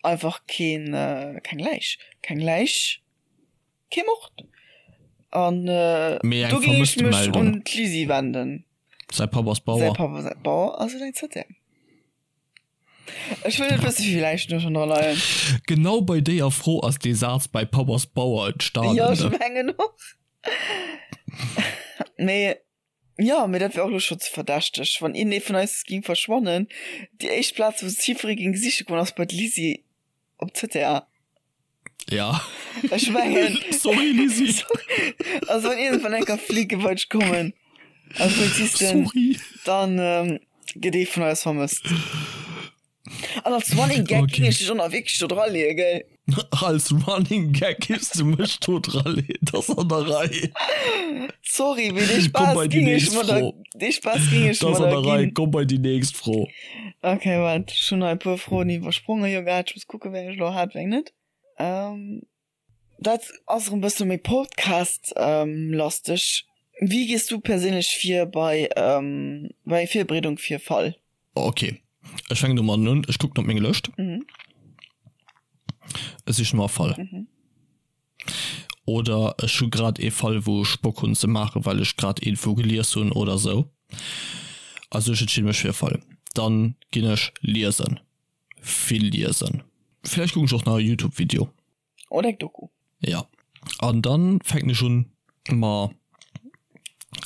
[SPEAKER 2] einfach keen, keng Läich. Keng Läich, kee Mord. An
[SPEAKER 1] Mee eng
[SPEAKER 2] do géing ech mech
[SPEAKER 1] Vermësstemeldung.
[SPEAKER 2] un d'Lisi wenden.
[SPEAKER 1] Säi Papp ass
[SPEAKER 2] Säi
[SPEAKER 1] Bauer.
[SPEAKER 2] Papp ass Bauer a se huet eng Zëttär. Ech wëll net wëssen, wéi vill Läichen do schonn dra leien.
[SPEAKER 1] Genau bei déier Fro ass dee Saz bei Papp ass Bauer entstanen.
[SPEAKER 2] Jo, ech mengen och. Mee jo, mee dat wär och elo scho ze verdächteg, wann een ee vun eis géing verschwannen. Déi éischt Plaz, wou se jiddweree géing siche goen, ass bei d'Lisi op ZTA.
[SPEAKER 1] Ja.
[SPEAKER 2] Ech mengen.
[SPEAKER 1] Sorry, Lisi.
[SPEAKER 2] Sorry. Also wann iergendwann eng Kéier Flicken bei dech kommen als Polizisten,
[SPEAKER 1] Sorry.
[SPEAKER 2] dann ähm, gëtt ee vun eis vermësst. An als Running Gag
[SPEAKER 1] Okay.
[SPEAKER 2] ging ech dech och nach wierklech do dra leeën, gell?
[SPEAKER 1] Als Running Gag giffs du mech do dra leeën, das an der Rei.
[SPEAKER 2] Sorry, mee dee
[SPEAKER 1] Komm
[SPEAKER 2] Spaass
[SPEAKER 1] bei déi
[SPEAKER 2] ging ech
[SPEAKER 1] nächst
[SPEAKER 2] mer da,
[SPEAKER 1] Fro.
[SPEAKER 2] dee Spaass ging ech
[SPEAKER 1] Das
[SPEAKER 2] mer
[SPEAKER 1] an
[SPEAKER 2] da
[SPEAKER 1] der Rei,
[SPEAKER 2] ginn.
[SPEAKER 1] komm bei déi nächst Fro.
[SPEAKER 2] Okay, waart, ech hunn nach e puer Froen iwwersprongen jo grad. Ech muss kucken, wéi eng ech elo hat, wéi eng net. Ähm, dat ass erëm e bësse méi Podcast-lasteg. Wéi gees du perséinlech vir bei, ähm, bei Virbereedung fir e Fall?
[SPEAKER 1] Ok, ech fänken domadden un, ech kucken op meng Lëscht.
[SPEAKER 2] Mhm.
[SPEAKER 1] Ech sichen no e Fall.
[SPEAKER 2] Mhm.
[SPEAKER 1] Oder ech hu grad ee Fall wou ech Bock hunn ze maachen, well ech grad iergendwou gelies hunn oder sou. Also ech entscheede mech fir e Fall. Dann ginn ech liesen. Vill liesen. Villäicht kucken ech och nach e Youtube Video.
[SPEAKER 2] Oder eng Doku.
[SPEAKER 1] Jo. An dann fänken ech un mer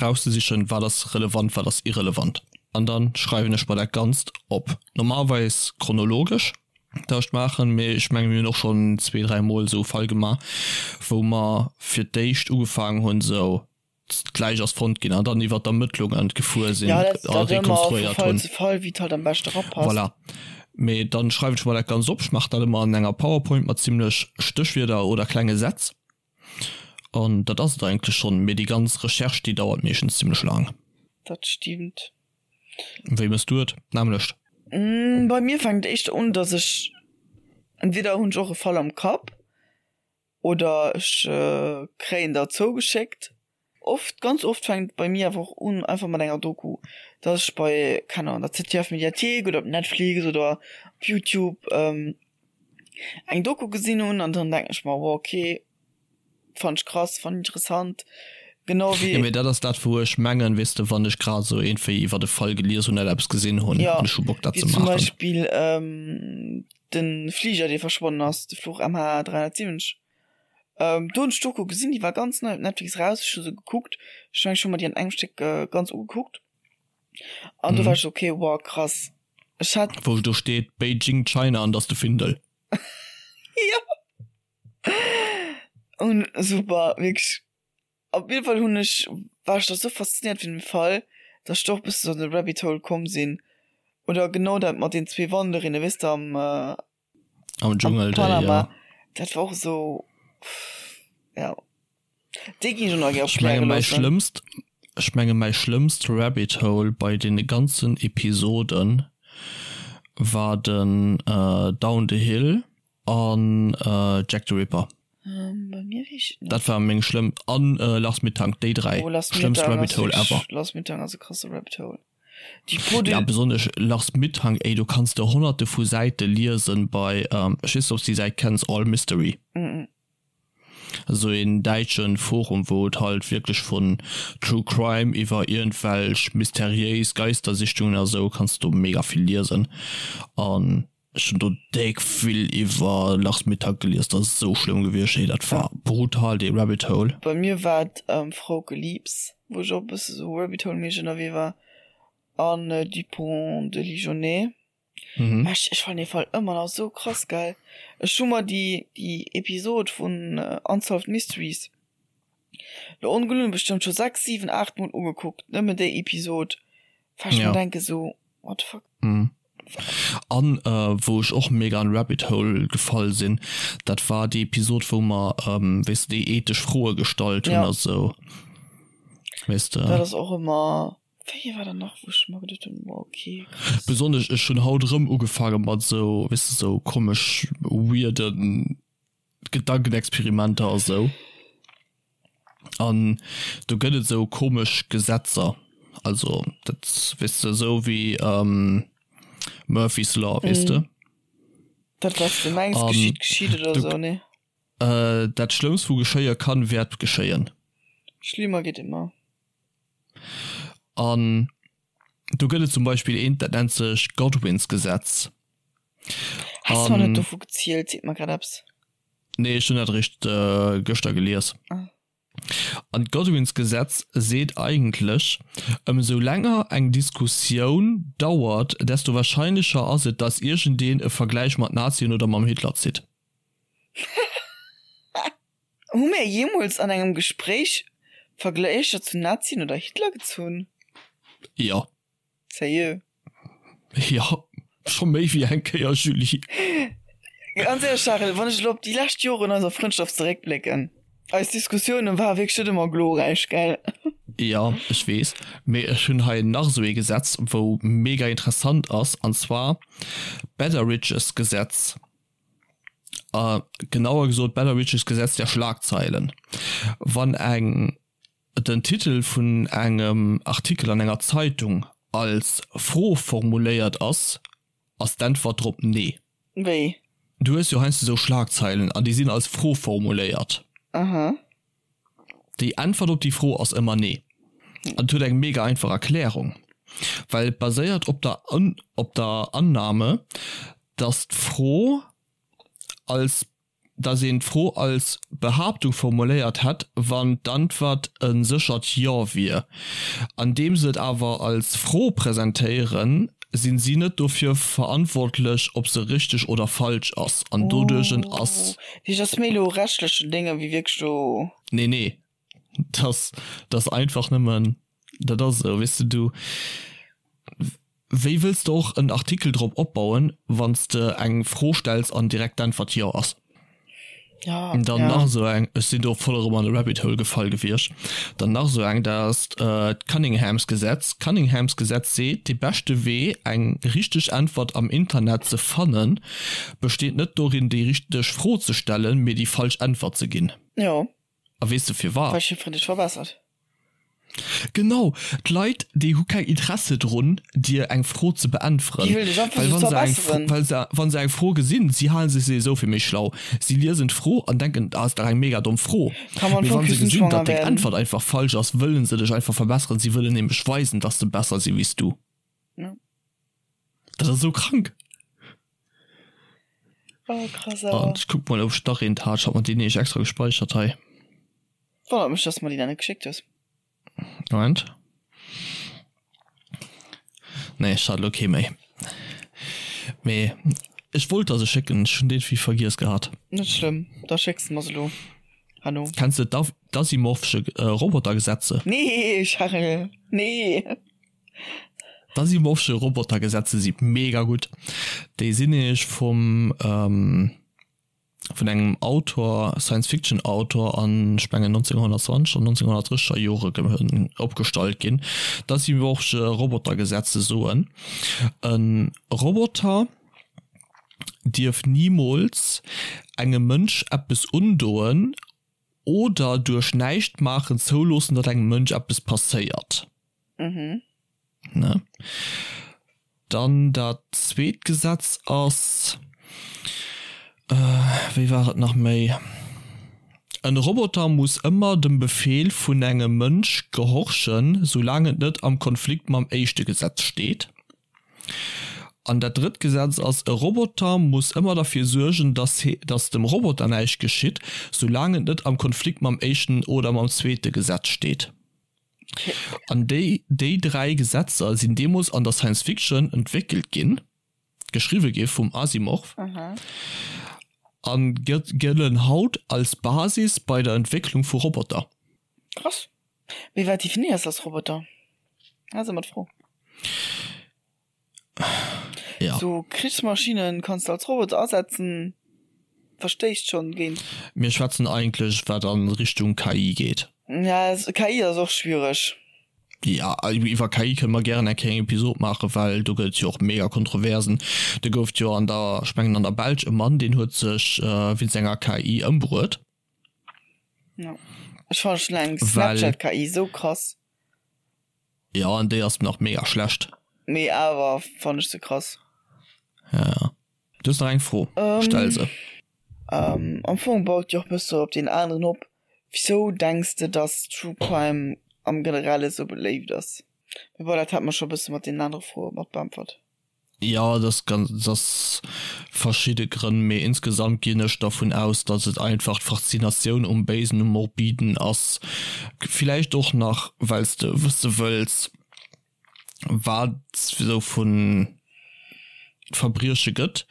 [SPEAKER 1] rauszesichen wat ass relevant, wat ass irrelevant. An dann schreiwen ech mer dat Ganzt op. Normalerweis chronologesch. Tauscht maachen, mee ech menge mir hunn och schonn zwee, dräi Mol esou e Fall gemaach, wou mer fir d'éischt ugefaangen hunn esou, d'Läich ass fonnt ginn an dann iwwer d'Ermëttlungen gefuer sinn
[SPEAKER 2] Ja, dat,
[SPEAKER 1] a
[SPEAKER 2] dat ëmmer vu
[SPEAKER 1] rekonstruéiert
[SPEAKER 2] Fall
[SPEAKER 1] hunn.
[SPEAKER 2] zu Fall, wéi et halt am beschte rapasst.
[SPEAKER 1] Voilà. Mee dann schreiwen ech mer dat Ganzt op. Ech maachen dat ëmmer an enger PowerPoint mat zimmlech Stéchwierder oder klenge Sätz an dat ass et eigentlech schonn. Mee déi ganz Recherche, déi dauert meeschtens zimmlech laang.
[SPEAKER 2] Dat stimmt.
[SPEAKER 1] Wéi mëss du et? D'nämmlecht?
[SPEAKER 2] Bei mir fänkt et éischter un, dass ech, entweder hunn ech och e Fall am Kapp oder ech kréien der zougeschéckt. Oft, ganz oft fänkt et bei mir awer och un einfach mat enger Doku, dass ech bei, keng Ahnung, der ZDF Mediathek oder op Netflix oder op Youtube eng Doku gesinn hunn an dann denken ech mer, wow okay, Fand ech krass, fand interessant, genau wéi.
[SPEAKER 1] Jo, mee dat ass dat wou ech mengen, weess de, wann ech grad esou iergendwéi iwwert e Fall gelies hunn oder eppes gesinn hunn
[SPEAKER 2] Ja,
[SPEAKER 1] an ech hu Bock dat
[SPEAKER 2] wéi
[SPEAKER 1] ze
[SPEAKER 2] zum
[SPEAKER 1] maachen.
[SPEAKER 2] Beispill de Fliger dee verschwonnen ass, de Fluch MH370. Do hunn ech d'Doku gesinn, déi war ganz nei op Netflix raus, ech hu se gekuckt, ech mengen ech hu mer déi an engem Stéck ganz ugekuckt an do war ech esou, okay, wow krass, ech hat.
[SPEAKER 1] Wou do steet Beijing China an dass de Findel.
[SPEAKER 2] Jo. Un super wierklech. Op jidde Fall hunn ech war ech da sou faszinéiert vun dem Fall, datt ech do och e bëssen an de Rabbit Hole komm sinn. Oder genau dat mat den zwee Wanderinne weess de am
[SPEAKER 1] Am Dschungel déi,
[SPEAKER 2] Panama.
[SPEAKER 1] ja.
[SPEAKER 2] Dat war och esou ja déi ginn ech och nach gär
[SPEAKER 1] Ech menge
[SPEAKER 2] opkläre
[SPEAKER 1] mäi
[SPEAKER 2] loossen.
[SPEAKER 1] schlëmmst ech menge mäi schlëmmst Rabbit Hole bei deene ganzen Episoden war den Down the Hill. An Jack the Ripper.
[SPEAKER 2] Bei mir weess ech et net.
[SPEAKER 1] Dat war meng schlëmm an Lars Mittank, déi 3
[SPEAKER 2] Oh, Lars
[SPEAKER 1] schlëmmst
[SPEAKER 2] Mittank
[SPEAKER 1] Rabbit
[SPEAKER 2] ass
[SPEAKER 1] Hole
[SPEAKER 2] wierklech,
[SPEAKER 1] ever.
[SPEAKER 2] Lars Mittank ass e krasse Rabbit Hole. Déi Peau de.
[SPEAKER 1] Ja besonnesch Lars Mittank, ey do kanns de honnerte vu Säite liesen bei, ech weess net obs de déi Säit kenns, All Mystery.
[SPEAKER 2] Mm.
[SPEAKER 1] Esou een däitschen Forum wou et halt wierklech vun True Crime iwwer iergendwelch mysteriéis Geistersichtungen a sou kanns de do mega vill liesen an Ech hun do déck vill iwwer Lars Mittank gelies, dat ass esou schlëmm gewiescht, hey dat war brutal dee Rabbit Hole.
[SPEAKER 2] Bei mir war et Frauke Liebs, wou ech och e bësse sou Rabbit Hole méisseg ënnerwee war an Dupont de Ligonnès.
[SPEAKER 1] Mhm.
[SPEAKER 2] Ech ech fannen dee Fall ëmmer nach sou krass gell. Ech hu mer déi déi Episod vun Unsolved Mysteries. Lo ongelunn bestëmmt scho 6, 7, 8 mol ugekuckt, nëmmen déi Episod, well ech mer denke sou, what the fuck.
[SPEAKER 1] An wou ech och mega an Rabbit Hole gefall sinn, dat war déi Episod wou mer weess de déi ethesch Froe gestallt hunn a sou,
[SPEAKER 2] weess de. Dat ass och ëmmer, wéi war dat nach wou ech mer geduet hunn, wow ok
[SPEAKER 1] krass. Besonnesch ech hunn haut erëm ugefaange mat sou, weess de, sou komesch weirden Gedankenexperimenter a sou. An do gëtt et sou komesch Gesetzer, also dat weess de sou wéi Murphy's Law, weess de.
[SPEAKER 2] Dat wat s de mengs geschitt, geschitt oder sou, nee?
[SPEAKER 1] Dat Schlëmmst wou geschéie kann, wäert geschéien.
[SPEAKER 2] Schlimmer geht immer.
[SPEAKER 1] An do gëtt et zum Beispill eent, dat nennt sech Godwins Gesetz.
[SPEAKER 2] Has du mer net dovu gezielt? Seet mer grad eppes.
[SPEAKER 1] Nee, ech hunn dat eréischt gëschter gelies. An d'Godwins Gesetz seet eigentlech, Ëmsou länger eng Diskussioun dauert, desto wahrscheinlecher ass et, datt iergendeen e Vergläich mat Nazien oder mam Hitler zitt.
[SPEAKER 2] Hu mir jeemools an engem Gespréich Vergläicher zu Nazien oder Hitler gezunn?
[SPEAKER 1] Jo.
[SPEAKER 2] Sérieux?
[SPEAKER 1] Jo, scho méi wéi eng Kéier, Julie.
[SPEAKER 2] Ganz éierlech, Charel, wann ech elo op déi lescht Joren eiser Frëndschaft zeréckblécken, eis Diskussiounen ware wierklech net ëmmer glorräich, gell?
[SPEAKER 1] Jo, ech weess, mee ech hunn hei nach esou ee Gesetz, wou mega interessant ass, an zwar d'Betteridge's Gesetz, genauer gesot d'Betteridge's Gesetz der Schlagzeilen. Wann eng den Titel vun engem Artikel an enger Zeitung als Fro formuléiert ass, ass d'Äntwert drop Nee.
[SPEAKER 2] Wéi?
[SPEAKER 1] Du hues jo heiansdo esou Schlagzeilen an déi sinn als Fro formuléiert.
[SPEAKER 2] Aha.
[SPEAKER 1] Déi Äntwert op déi Fro ass ëmmer Nee. An et huet eng mega einfach Erklärung, well et baséiert op der op der Annahme, dass d'Fro als dass een d'Fro als Behaaptung formuléiert hätt, wann d'Antwert e séchert Jo wier. Andeem se et awer als Fro presentéieren, sinn si net dofir verantwortlech, ob se richteg oder falsch ass. An doduerch ass.
[SPEAKER 2] Oh, dat ass méi elo rechtlechen Dénge wéi wierklech do.
[SPEAKER 1] Nee, nee, dat ass einfach nëmmen, dat ass esou, weess de, du. Wéi wëlls de och en Artikel drop opbauen, wann s de eng Fro stells an direkt d'Äntwert Jo ass?
[SPEAKER 2] Ja,
[SPEAKER 1] Dann
[SPEAKER 2] ja.
[SPEAKER 1] nach esou eng, ech sinn do voll erëm an e Rabbit Hole gefall gewiescht, dann nach esou eng, dat ass d'Cunninghams Gesetz. D'Cunninghams Gesetz seet, de beschte Wee eng richteg Äntwert am Internet ze fannen, besteet net dorin déi richteg Fro ze stellen, mee déi falsch Äntwert ze ginn.
[SPEAKER 2] Jo.
[SPEAKER 1] A weess de firwat?
[SPEAKER 2] Well jiddwereen dech verbessert.
[SPEAKER 1] Genau, d'Leit déi hu keng Interesse drun dir eng Fro ze beäntweren,
[SPEAKER 2] Déi wëllen dech einfach
[SPEAKER 1] well
[SPEAKER 2] just
[SPEAKER 1] wa se eng
[SPEAKER 2] verbesseren.
[SPEAKER 1] well se wa se eng Fro gesinn, si halen sech souwisou fir méi schlau, si liesen d'Fro an denken, ah ass dach eng mega domm Fro,
[SPEAKER 2] Kann man
[SPEAKER 1] mee
[SPEAKER 2] voll
[SPEAKER 1] wa se gesinn,
[SPEAKER 2] küstenschwanger
[SPEAKER 1] datt deng
[SPEAKER 2] werden.
[SPEAKER 1] Äntwert einfach falsch ass, wëllen se dech einfach verbesseren, si wëllen nämlech weisen, datt se besser si wéi s du.
[SPEAKER 2] Ja.
[SPEAKER 1] Dat ass esou krank.
[SPEAKER 2] Oh krass
[SPEAKER 1] An
[SPEAKER 2] awer.
[SPEAKER 1] ech kuck mol ob ech nach eent hat, ech hat mer déi nämlech extra gespäichert hei.
[SPEAKER 2] Wonnert mech dass de mer déi nach net geschéckt hues.
[SPEAKER 1] Moment. Nee, ech hat elo kee méi. Mee ech wollt der se schécken, ech hunn déi vergiess gehat.
[SPEAKER 2] Net schlëmm, da schécks de mer se elo herno.
[SPEAKER 1] Kenns de d'Asimovsche Robotergesetze?
[SPEAKER 2] Nee, Charel, nee.
[SPEAKER 1] D'Asimovsche Robotergesetze si mega gutt. Déi sinn nämlech vum vun engem Autor, Science Fiction Autor an ech mengen 1920 an 1930er Jore opgestallt ginn. D'Asimovsche Robotergesetze soen, e Roboter dierf nimools engem Mënsch eppes undoen oder duerch Näischtmaachen zouloossen, datt engem Mënsch eppes passéiert.
[SPEAKER 2] Mhm.
[SPEAKER 1] Ne? Dann dat zweet Gesetz ass, wéi war et nach méi, En Roboter muss ëmmer dem Befeel vun engem Mënsch gehorchen, soulaang et net am Konflikt mam éischte Gesetz steet. An dat drëtt Gesetz ass, E Roboter muss ëmmer derfir suergen, dass dass dem Roboter näischt geschitt, soulaang et net am Konflikt mam éischten oder mam zweete Gesetz steet. An déi déi 3 Gesetzer sinn deemools an der Science Fiction entwéckelt ginn, geschriwwe gi vum Asimov, a gëllen haut als Basis bei der Entwécklung vu Roboter.
[SPEAKER 2] Krass. Mee wat definéiers de als Roboter? Dat ass ëmmer d'Fro.
[SPEAKER 1] Ja.
[SPEAKER 2] So Krichsmaschinen kanns de als Roboter asetzen, verstéisst schonn géint.
[SPEAKER 1] Mir schwätzen eigentlech wat an Richtung KI geet.
[SPEAKER 2] Ja, KI ass och schwiereg.
[SPEAKER 1] Ja, iwwer KI kënne mer gären eng kleng Episod maachen, well do gëtt et jo och mega Kontroversen. Do gouf et jo an der, ech mengen an der Belsch e Mann, deen huet sech wéinst enger KI ëmbruet.
[SPEAKER 2] Ja. Ech fannen schon eng Snapchat KI sou krass.
[SPEAKER 1] Ja, an déi ass nach mega schlecht.
[SPEAKER 2] Mee awer fannen ech se krass.
[SPEAKER 1] Ja, ja. Du hues nach eng Fro, stell se.
[SPEAKER 2] Am Fong baut déi och bësse op deen aneren op. Wisou denks de dass True Crime am generelle sou beléift ass? Mee bon, dat hate mer scho bësse mat deenen anere Froe mat beäntwert.
[SPEAKER 1] Jo, dat ass ganz, dat ass verschidde Grënn, mee insgesamt ginn ech dervun aus, datt et einfach d'Faszinatioun um Béisen, um Morbiden ass. Villäicht och nach, well s de wësse wëlls, wat esou vu Verbrieche gëtt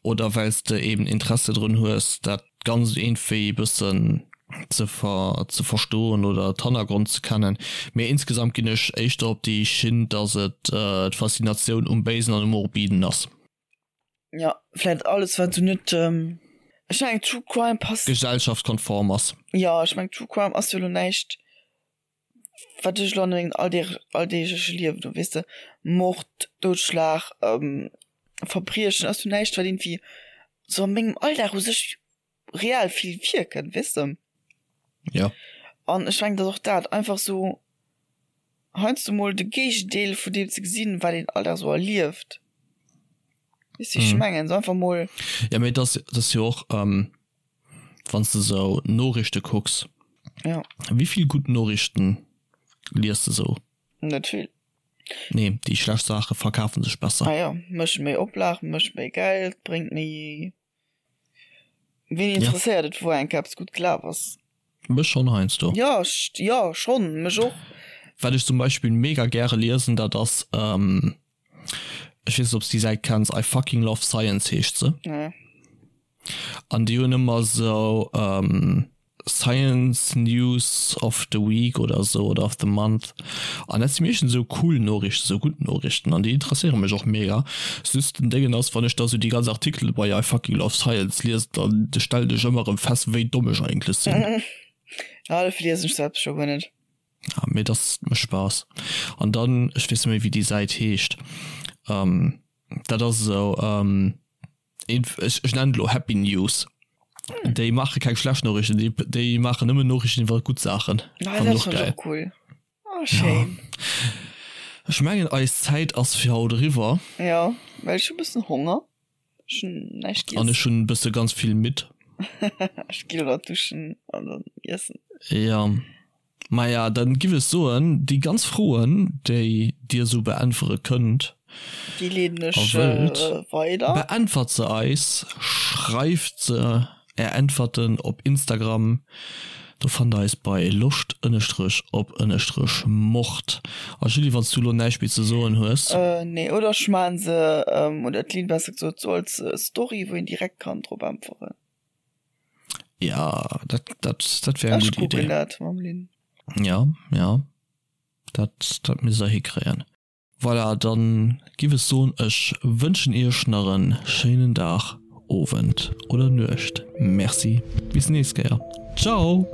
[SPEAKER 1] oder well s de eben Interesse drun hues, dat Ganzt iergendwéi e bëssen ze ze verstoen oder d'Hannergrond ze kennen. Mee insgesamt ginn ech éischter op déi Schinn, dass et d'Faszinatioun um Béisen an um Morbiden ass.
[SPEAKER 2] Jo, vläit alles wat sou net, ech mengen True Crime passt.
[SPEAKER 1] Gesellschaftskonform ass.
[SPEAKER 2] Jo, ech mengen True Crime ass jo elo näischt wat ech elo an mengem alldeegleche Liewen do, weess de, Mord, Doudschlag, Verbriechen ass jo näischt wat iergendwéi sou a mengem Alldag u sech reell vill virkënnt, weess de.
[SPEAKER 1] Jo.
[SPEAKER 2] An ech mengen, datt och dat einfach sou heiansdo mol de Géigendeel vun deem ze gesinn, wat een all Dag sou erlieft, weess de wéi ech mengen, sou einfach mol.
[SPEAKER 1] Jo, mee et ass, et ass jo och, wann s de sou Noriichte kucks,
[SPEAKER 2] Jo.
[SPEAKER 1] Wéi vill gutt Noriichten lies de sou?
[SPEAKER 2] Net vill.
[SPEAKER 1] Nee, déi schlecht Saache verkafe sech besser.
[SPEAKER 2] Ah jo, mécht méi Oplag, mécht méi Geld, bréngt méi. Ween interesséiert et, wou eng Kéier eppes gutt gelaf ass?
[SPEAKER 1] Mech schonn heiansdo.
[SPEAKER 2] Jo, jo schonn, mech och.
[SPEAKER 1] Wat ech zum Beispill mega gäre liesen, dat ass, ech weess net, ob s de déi Säit kenns, I fucking love science heescht se.
[SPEAKER 2] Nee.
[SPEAKER 1] An déi hunn ëmmer esou Science News of the Week oder esou oder of the Month. An dat si meeschtens esou cool Noriichten, esou gutt Noriichten an déi interesséiere mech och mega. Just den Déngen ass, wann ech da sou déi ganz Artikele bei I fucking love science liesen, dann stellen ech ëmmer erëm fest, wéi domm ech eigentlech sinn.
[SPEAKER 2] Ah, dofir liesen ech se scho guer net.
[SPEAKER 1] Ja, mee dat mécht Spaass. An dann, ech weess net méi, wéi déi Säit heescht, dat ass esou, ech ech nennen et elo Happy News. Déi maache keng schlecht Noriichten, déi déi maachen nëmmen Noriichten iwwer gutt Saachen.
[SPEAKER 2] Ah, dat ass och cool. Oh, schéin.
[SPEAKER 1] Ja. Ech mengen eis Zäit ass fir haut eriwwer.
[SPEAKER 2] Jo, well ech hu bëssen Honger. Ech hunn näischt
[SPEAKER 1] giess. An ech hunn bësse ganz vill midd.
[SPEAKER 2] Ech gi elo nach duschen an dann iessen.
[SPEAKER 1] Jo. Maja, dann giff ech soen, déi ganz Froen, déi dir esou beäntwere kënnt
[SPEAKER 2] Déi leeden ech a wëllt, weider.
[SPEAKER 1] beäntwert se eis, schreift se är Äntwerten op Instagram, do fannt der eis bei loscht ënnestrech op ënnestrech mord. A Julie, wann s du elo näischt méi ze soen hues.
[SPEAKER 2] Nee, oder ech maan se, oder d'Lynn besser gesot, sou als Story, wou een direkt kann drop äntweren.
[SPEAKER 1] Ja, dat, dat, dat wär eng
[SPEAKER 2] Ech
[SPEAKER 1] gutt Idee.
[SPEAKER 2] kucken dat mam Lynn.
[SPEAKER 1] Ja, ja, dat, dat misst der hikréien. Voilà, dann giff ech soen, ech wënschen iech nach en schéinen Dag, Owend oder Nuecht. Merci, bis nächst Kéier. Ciao!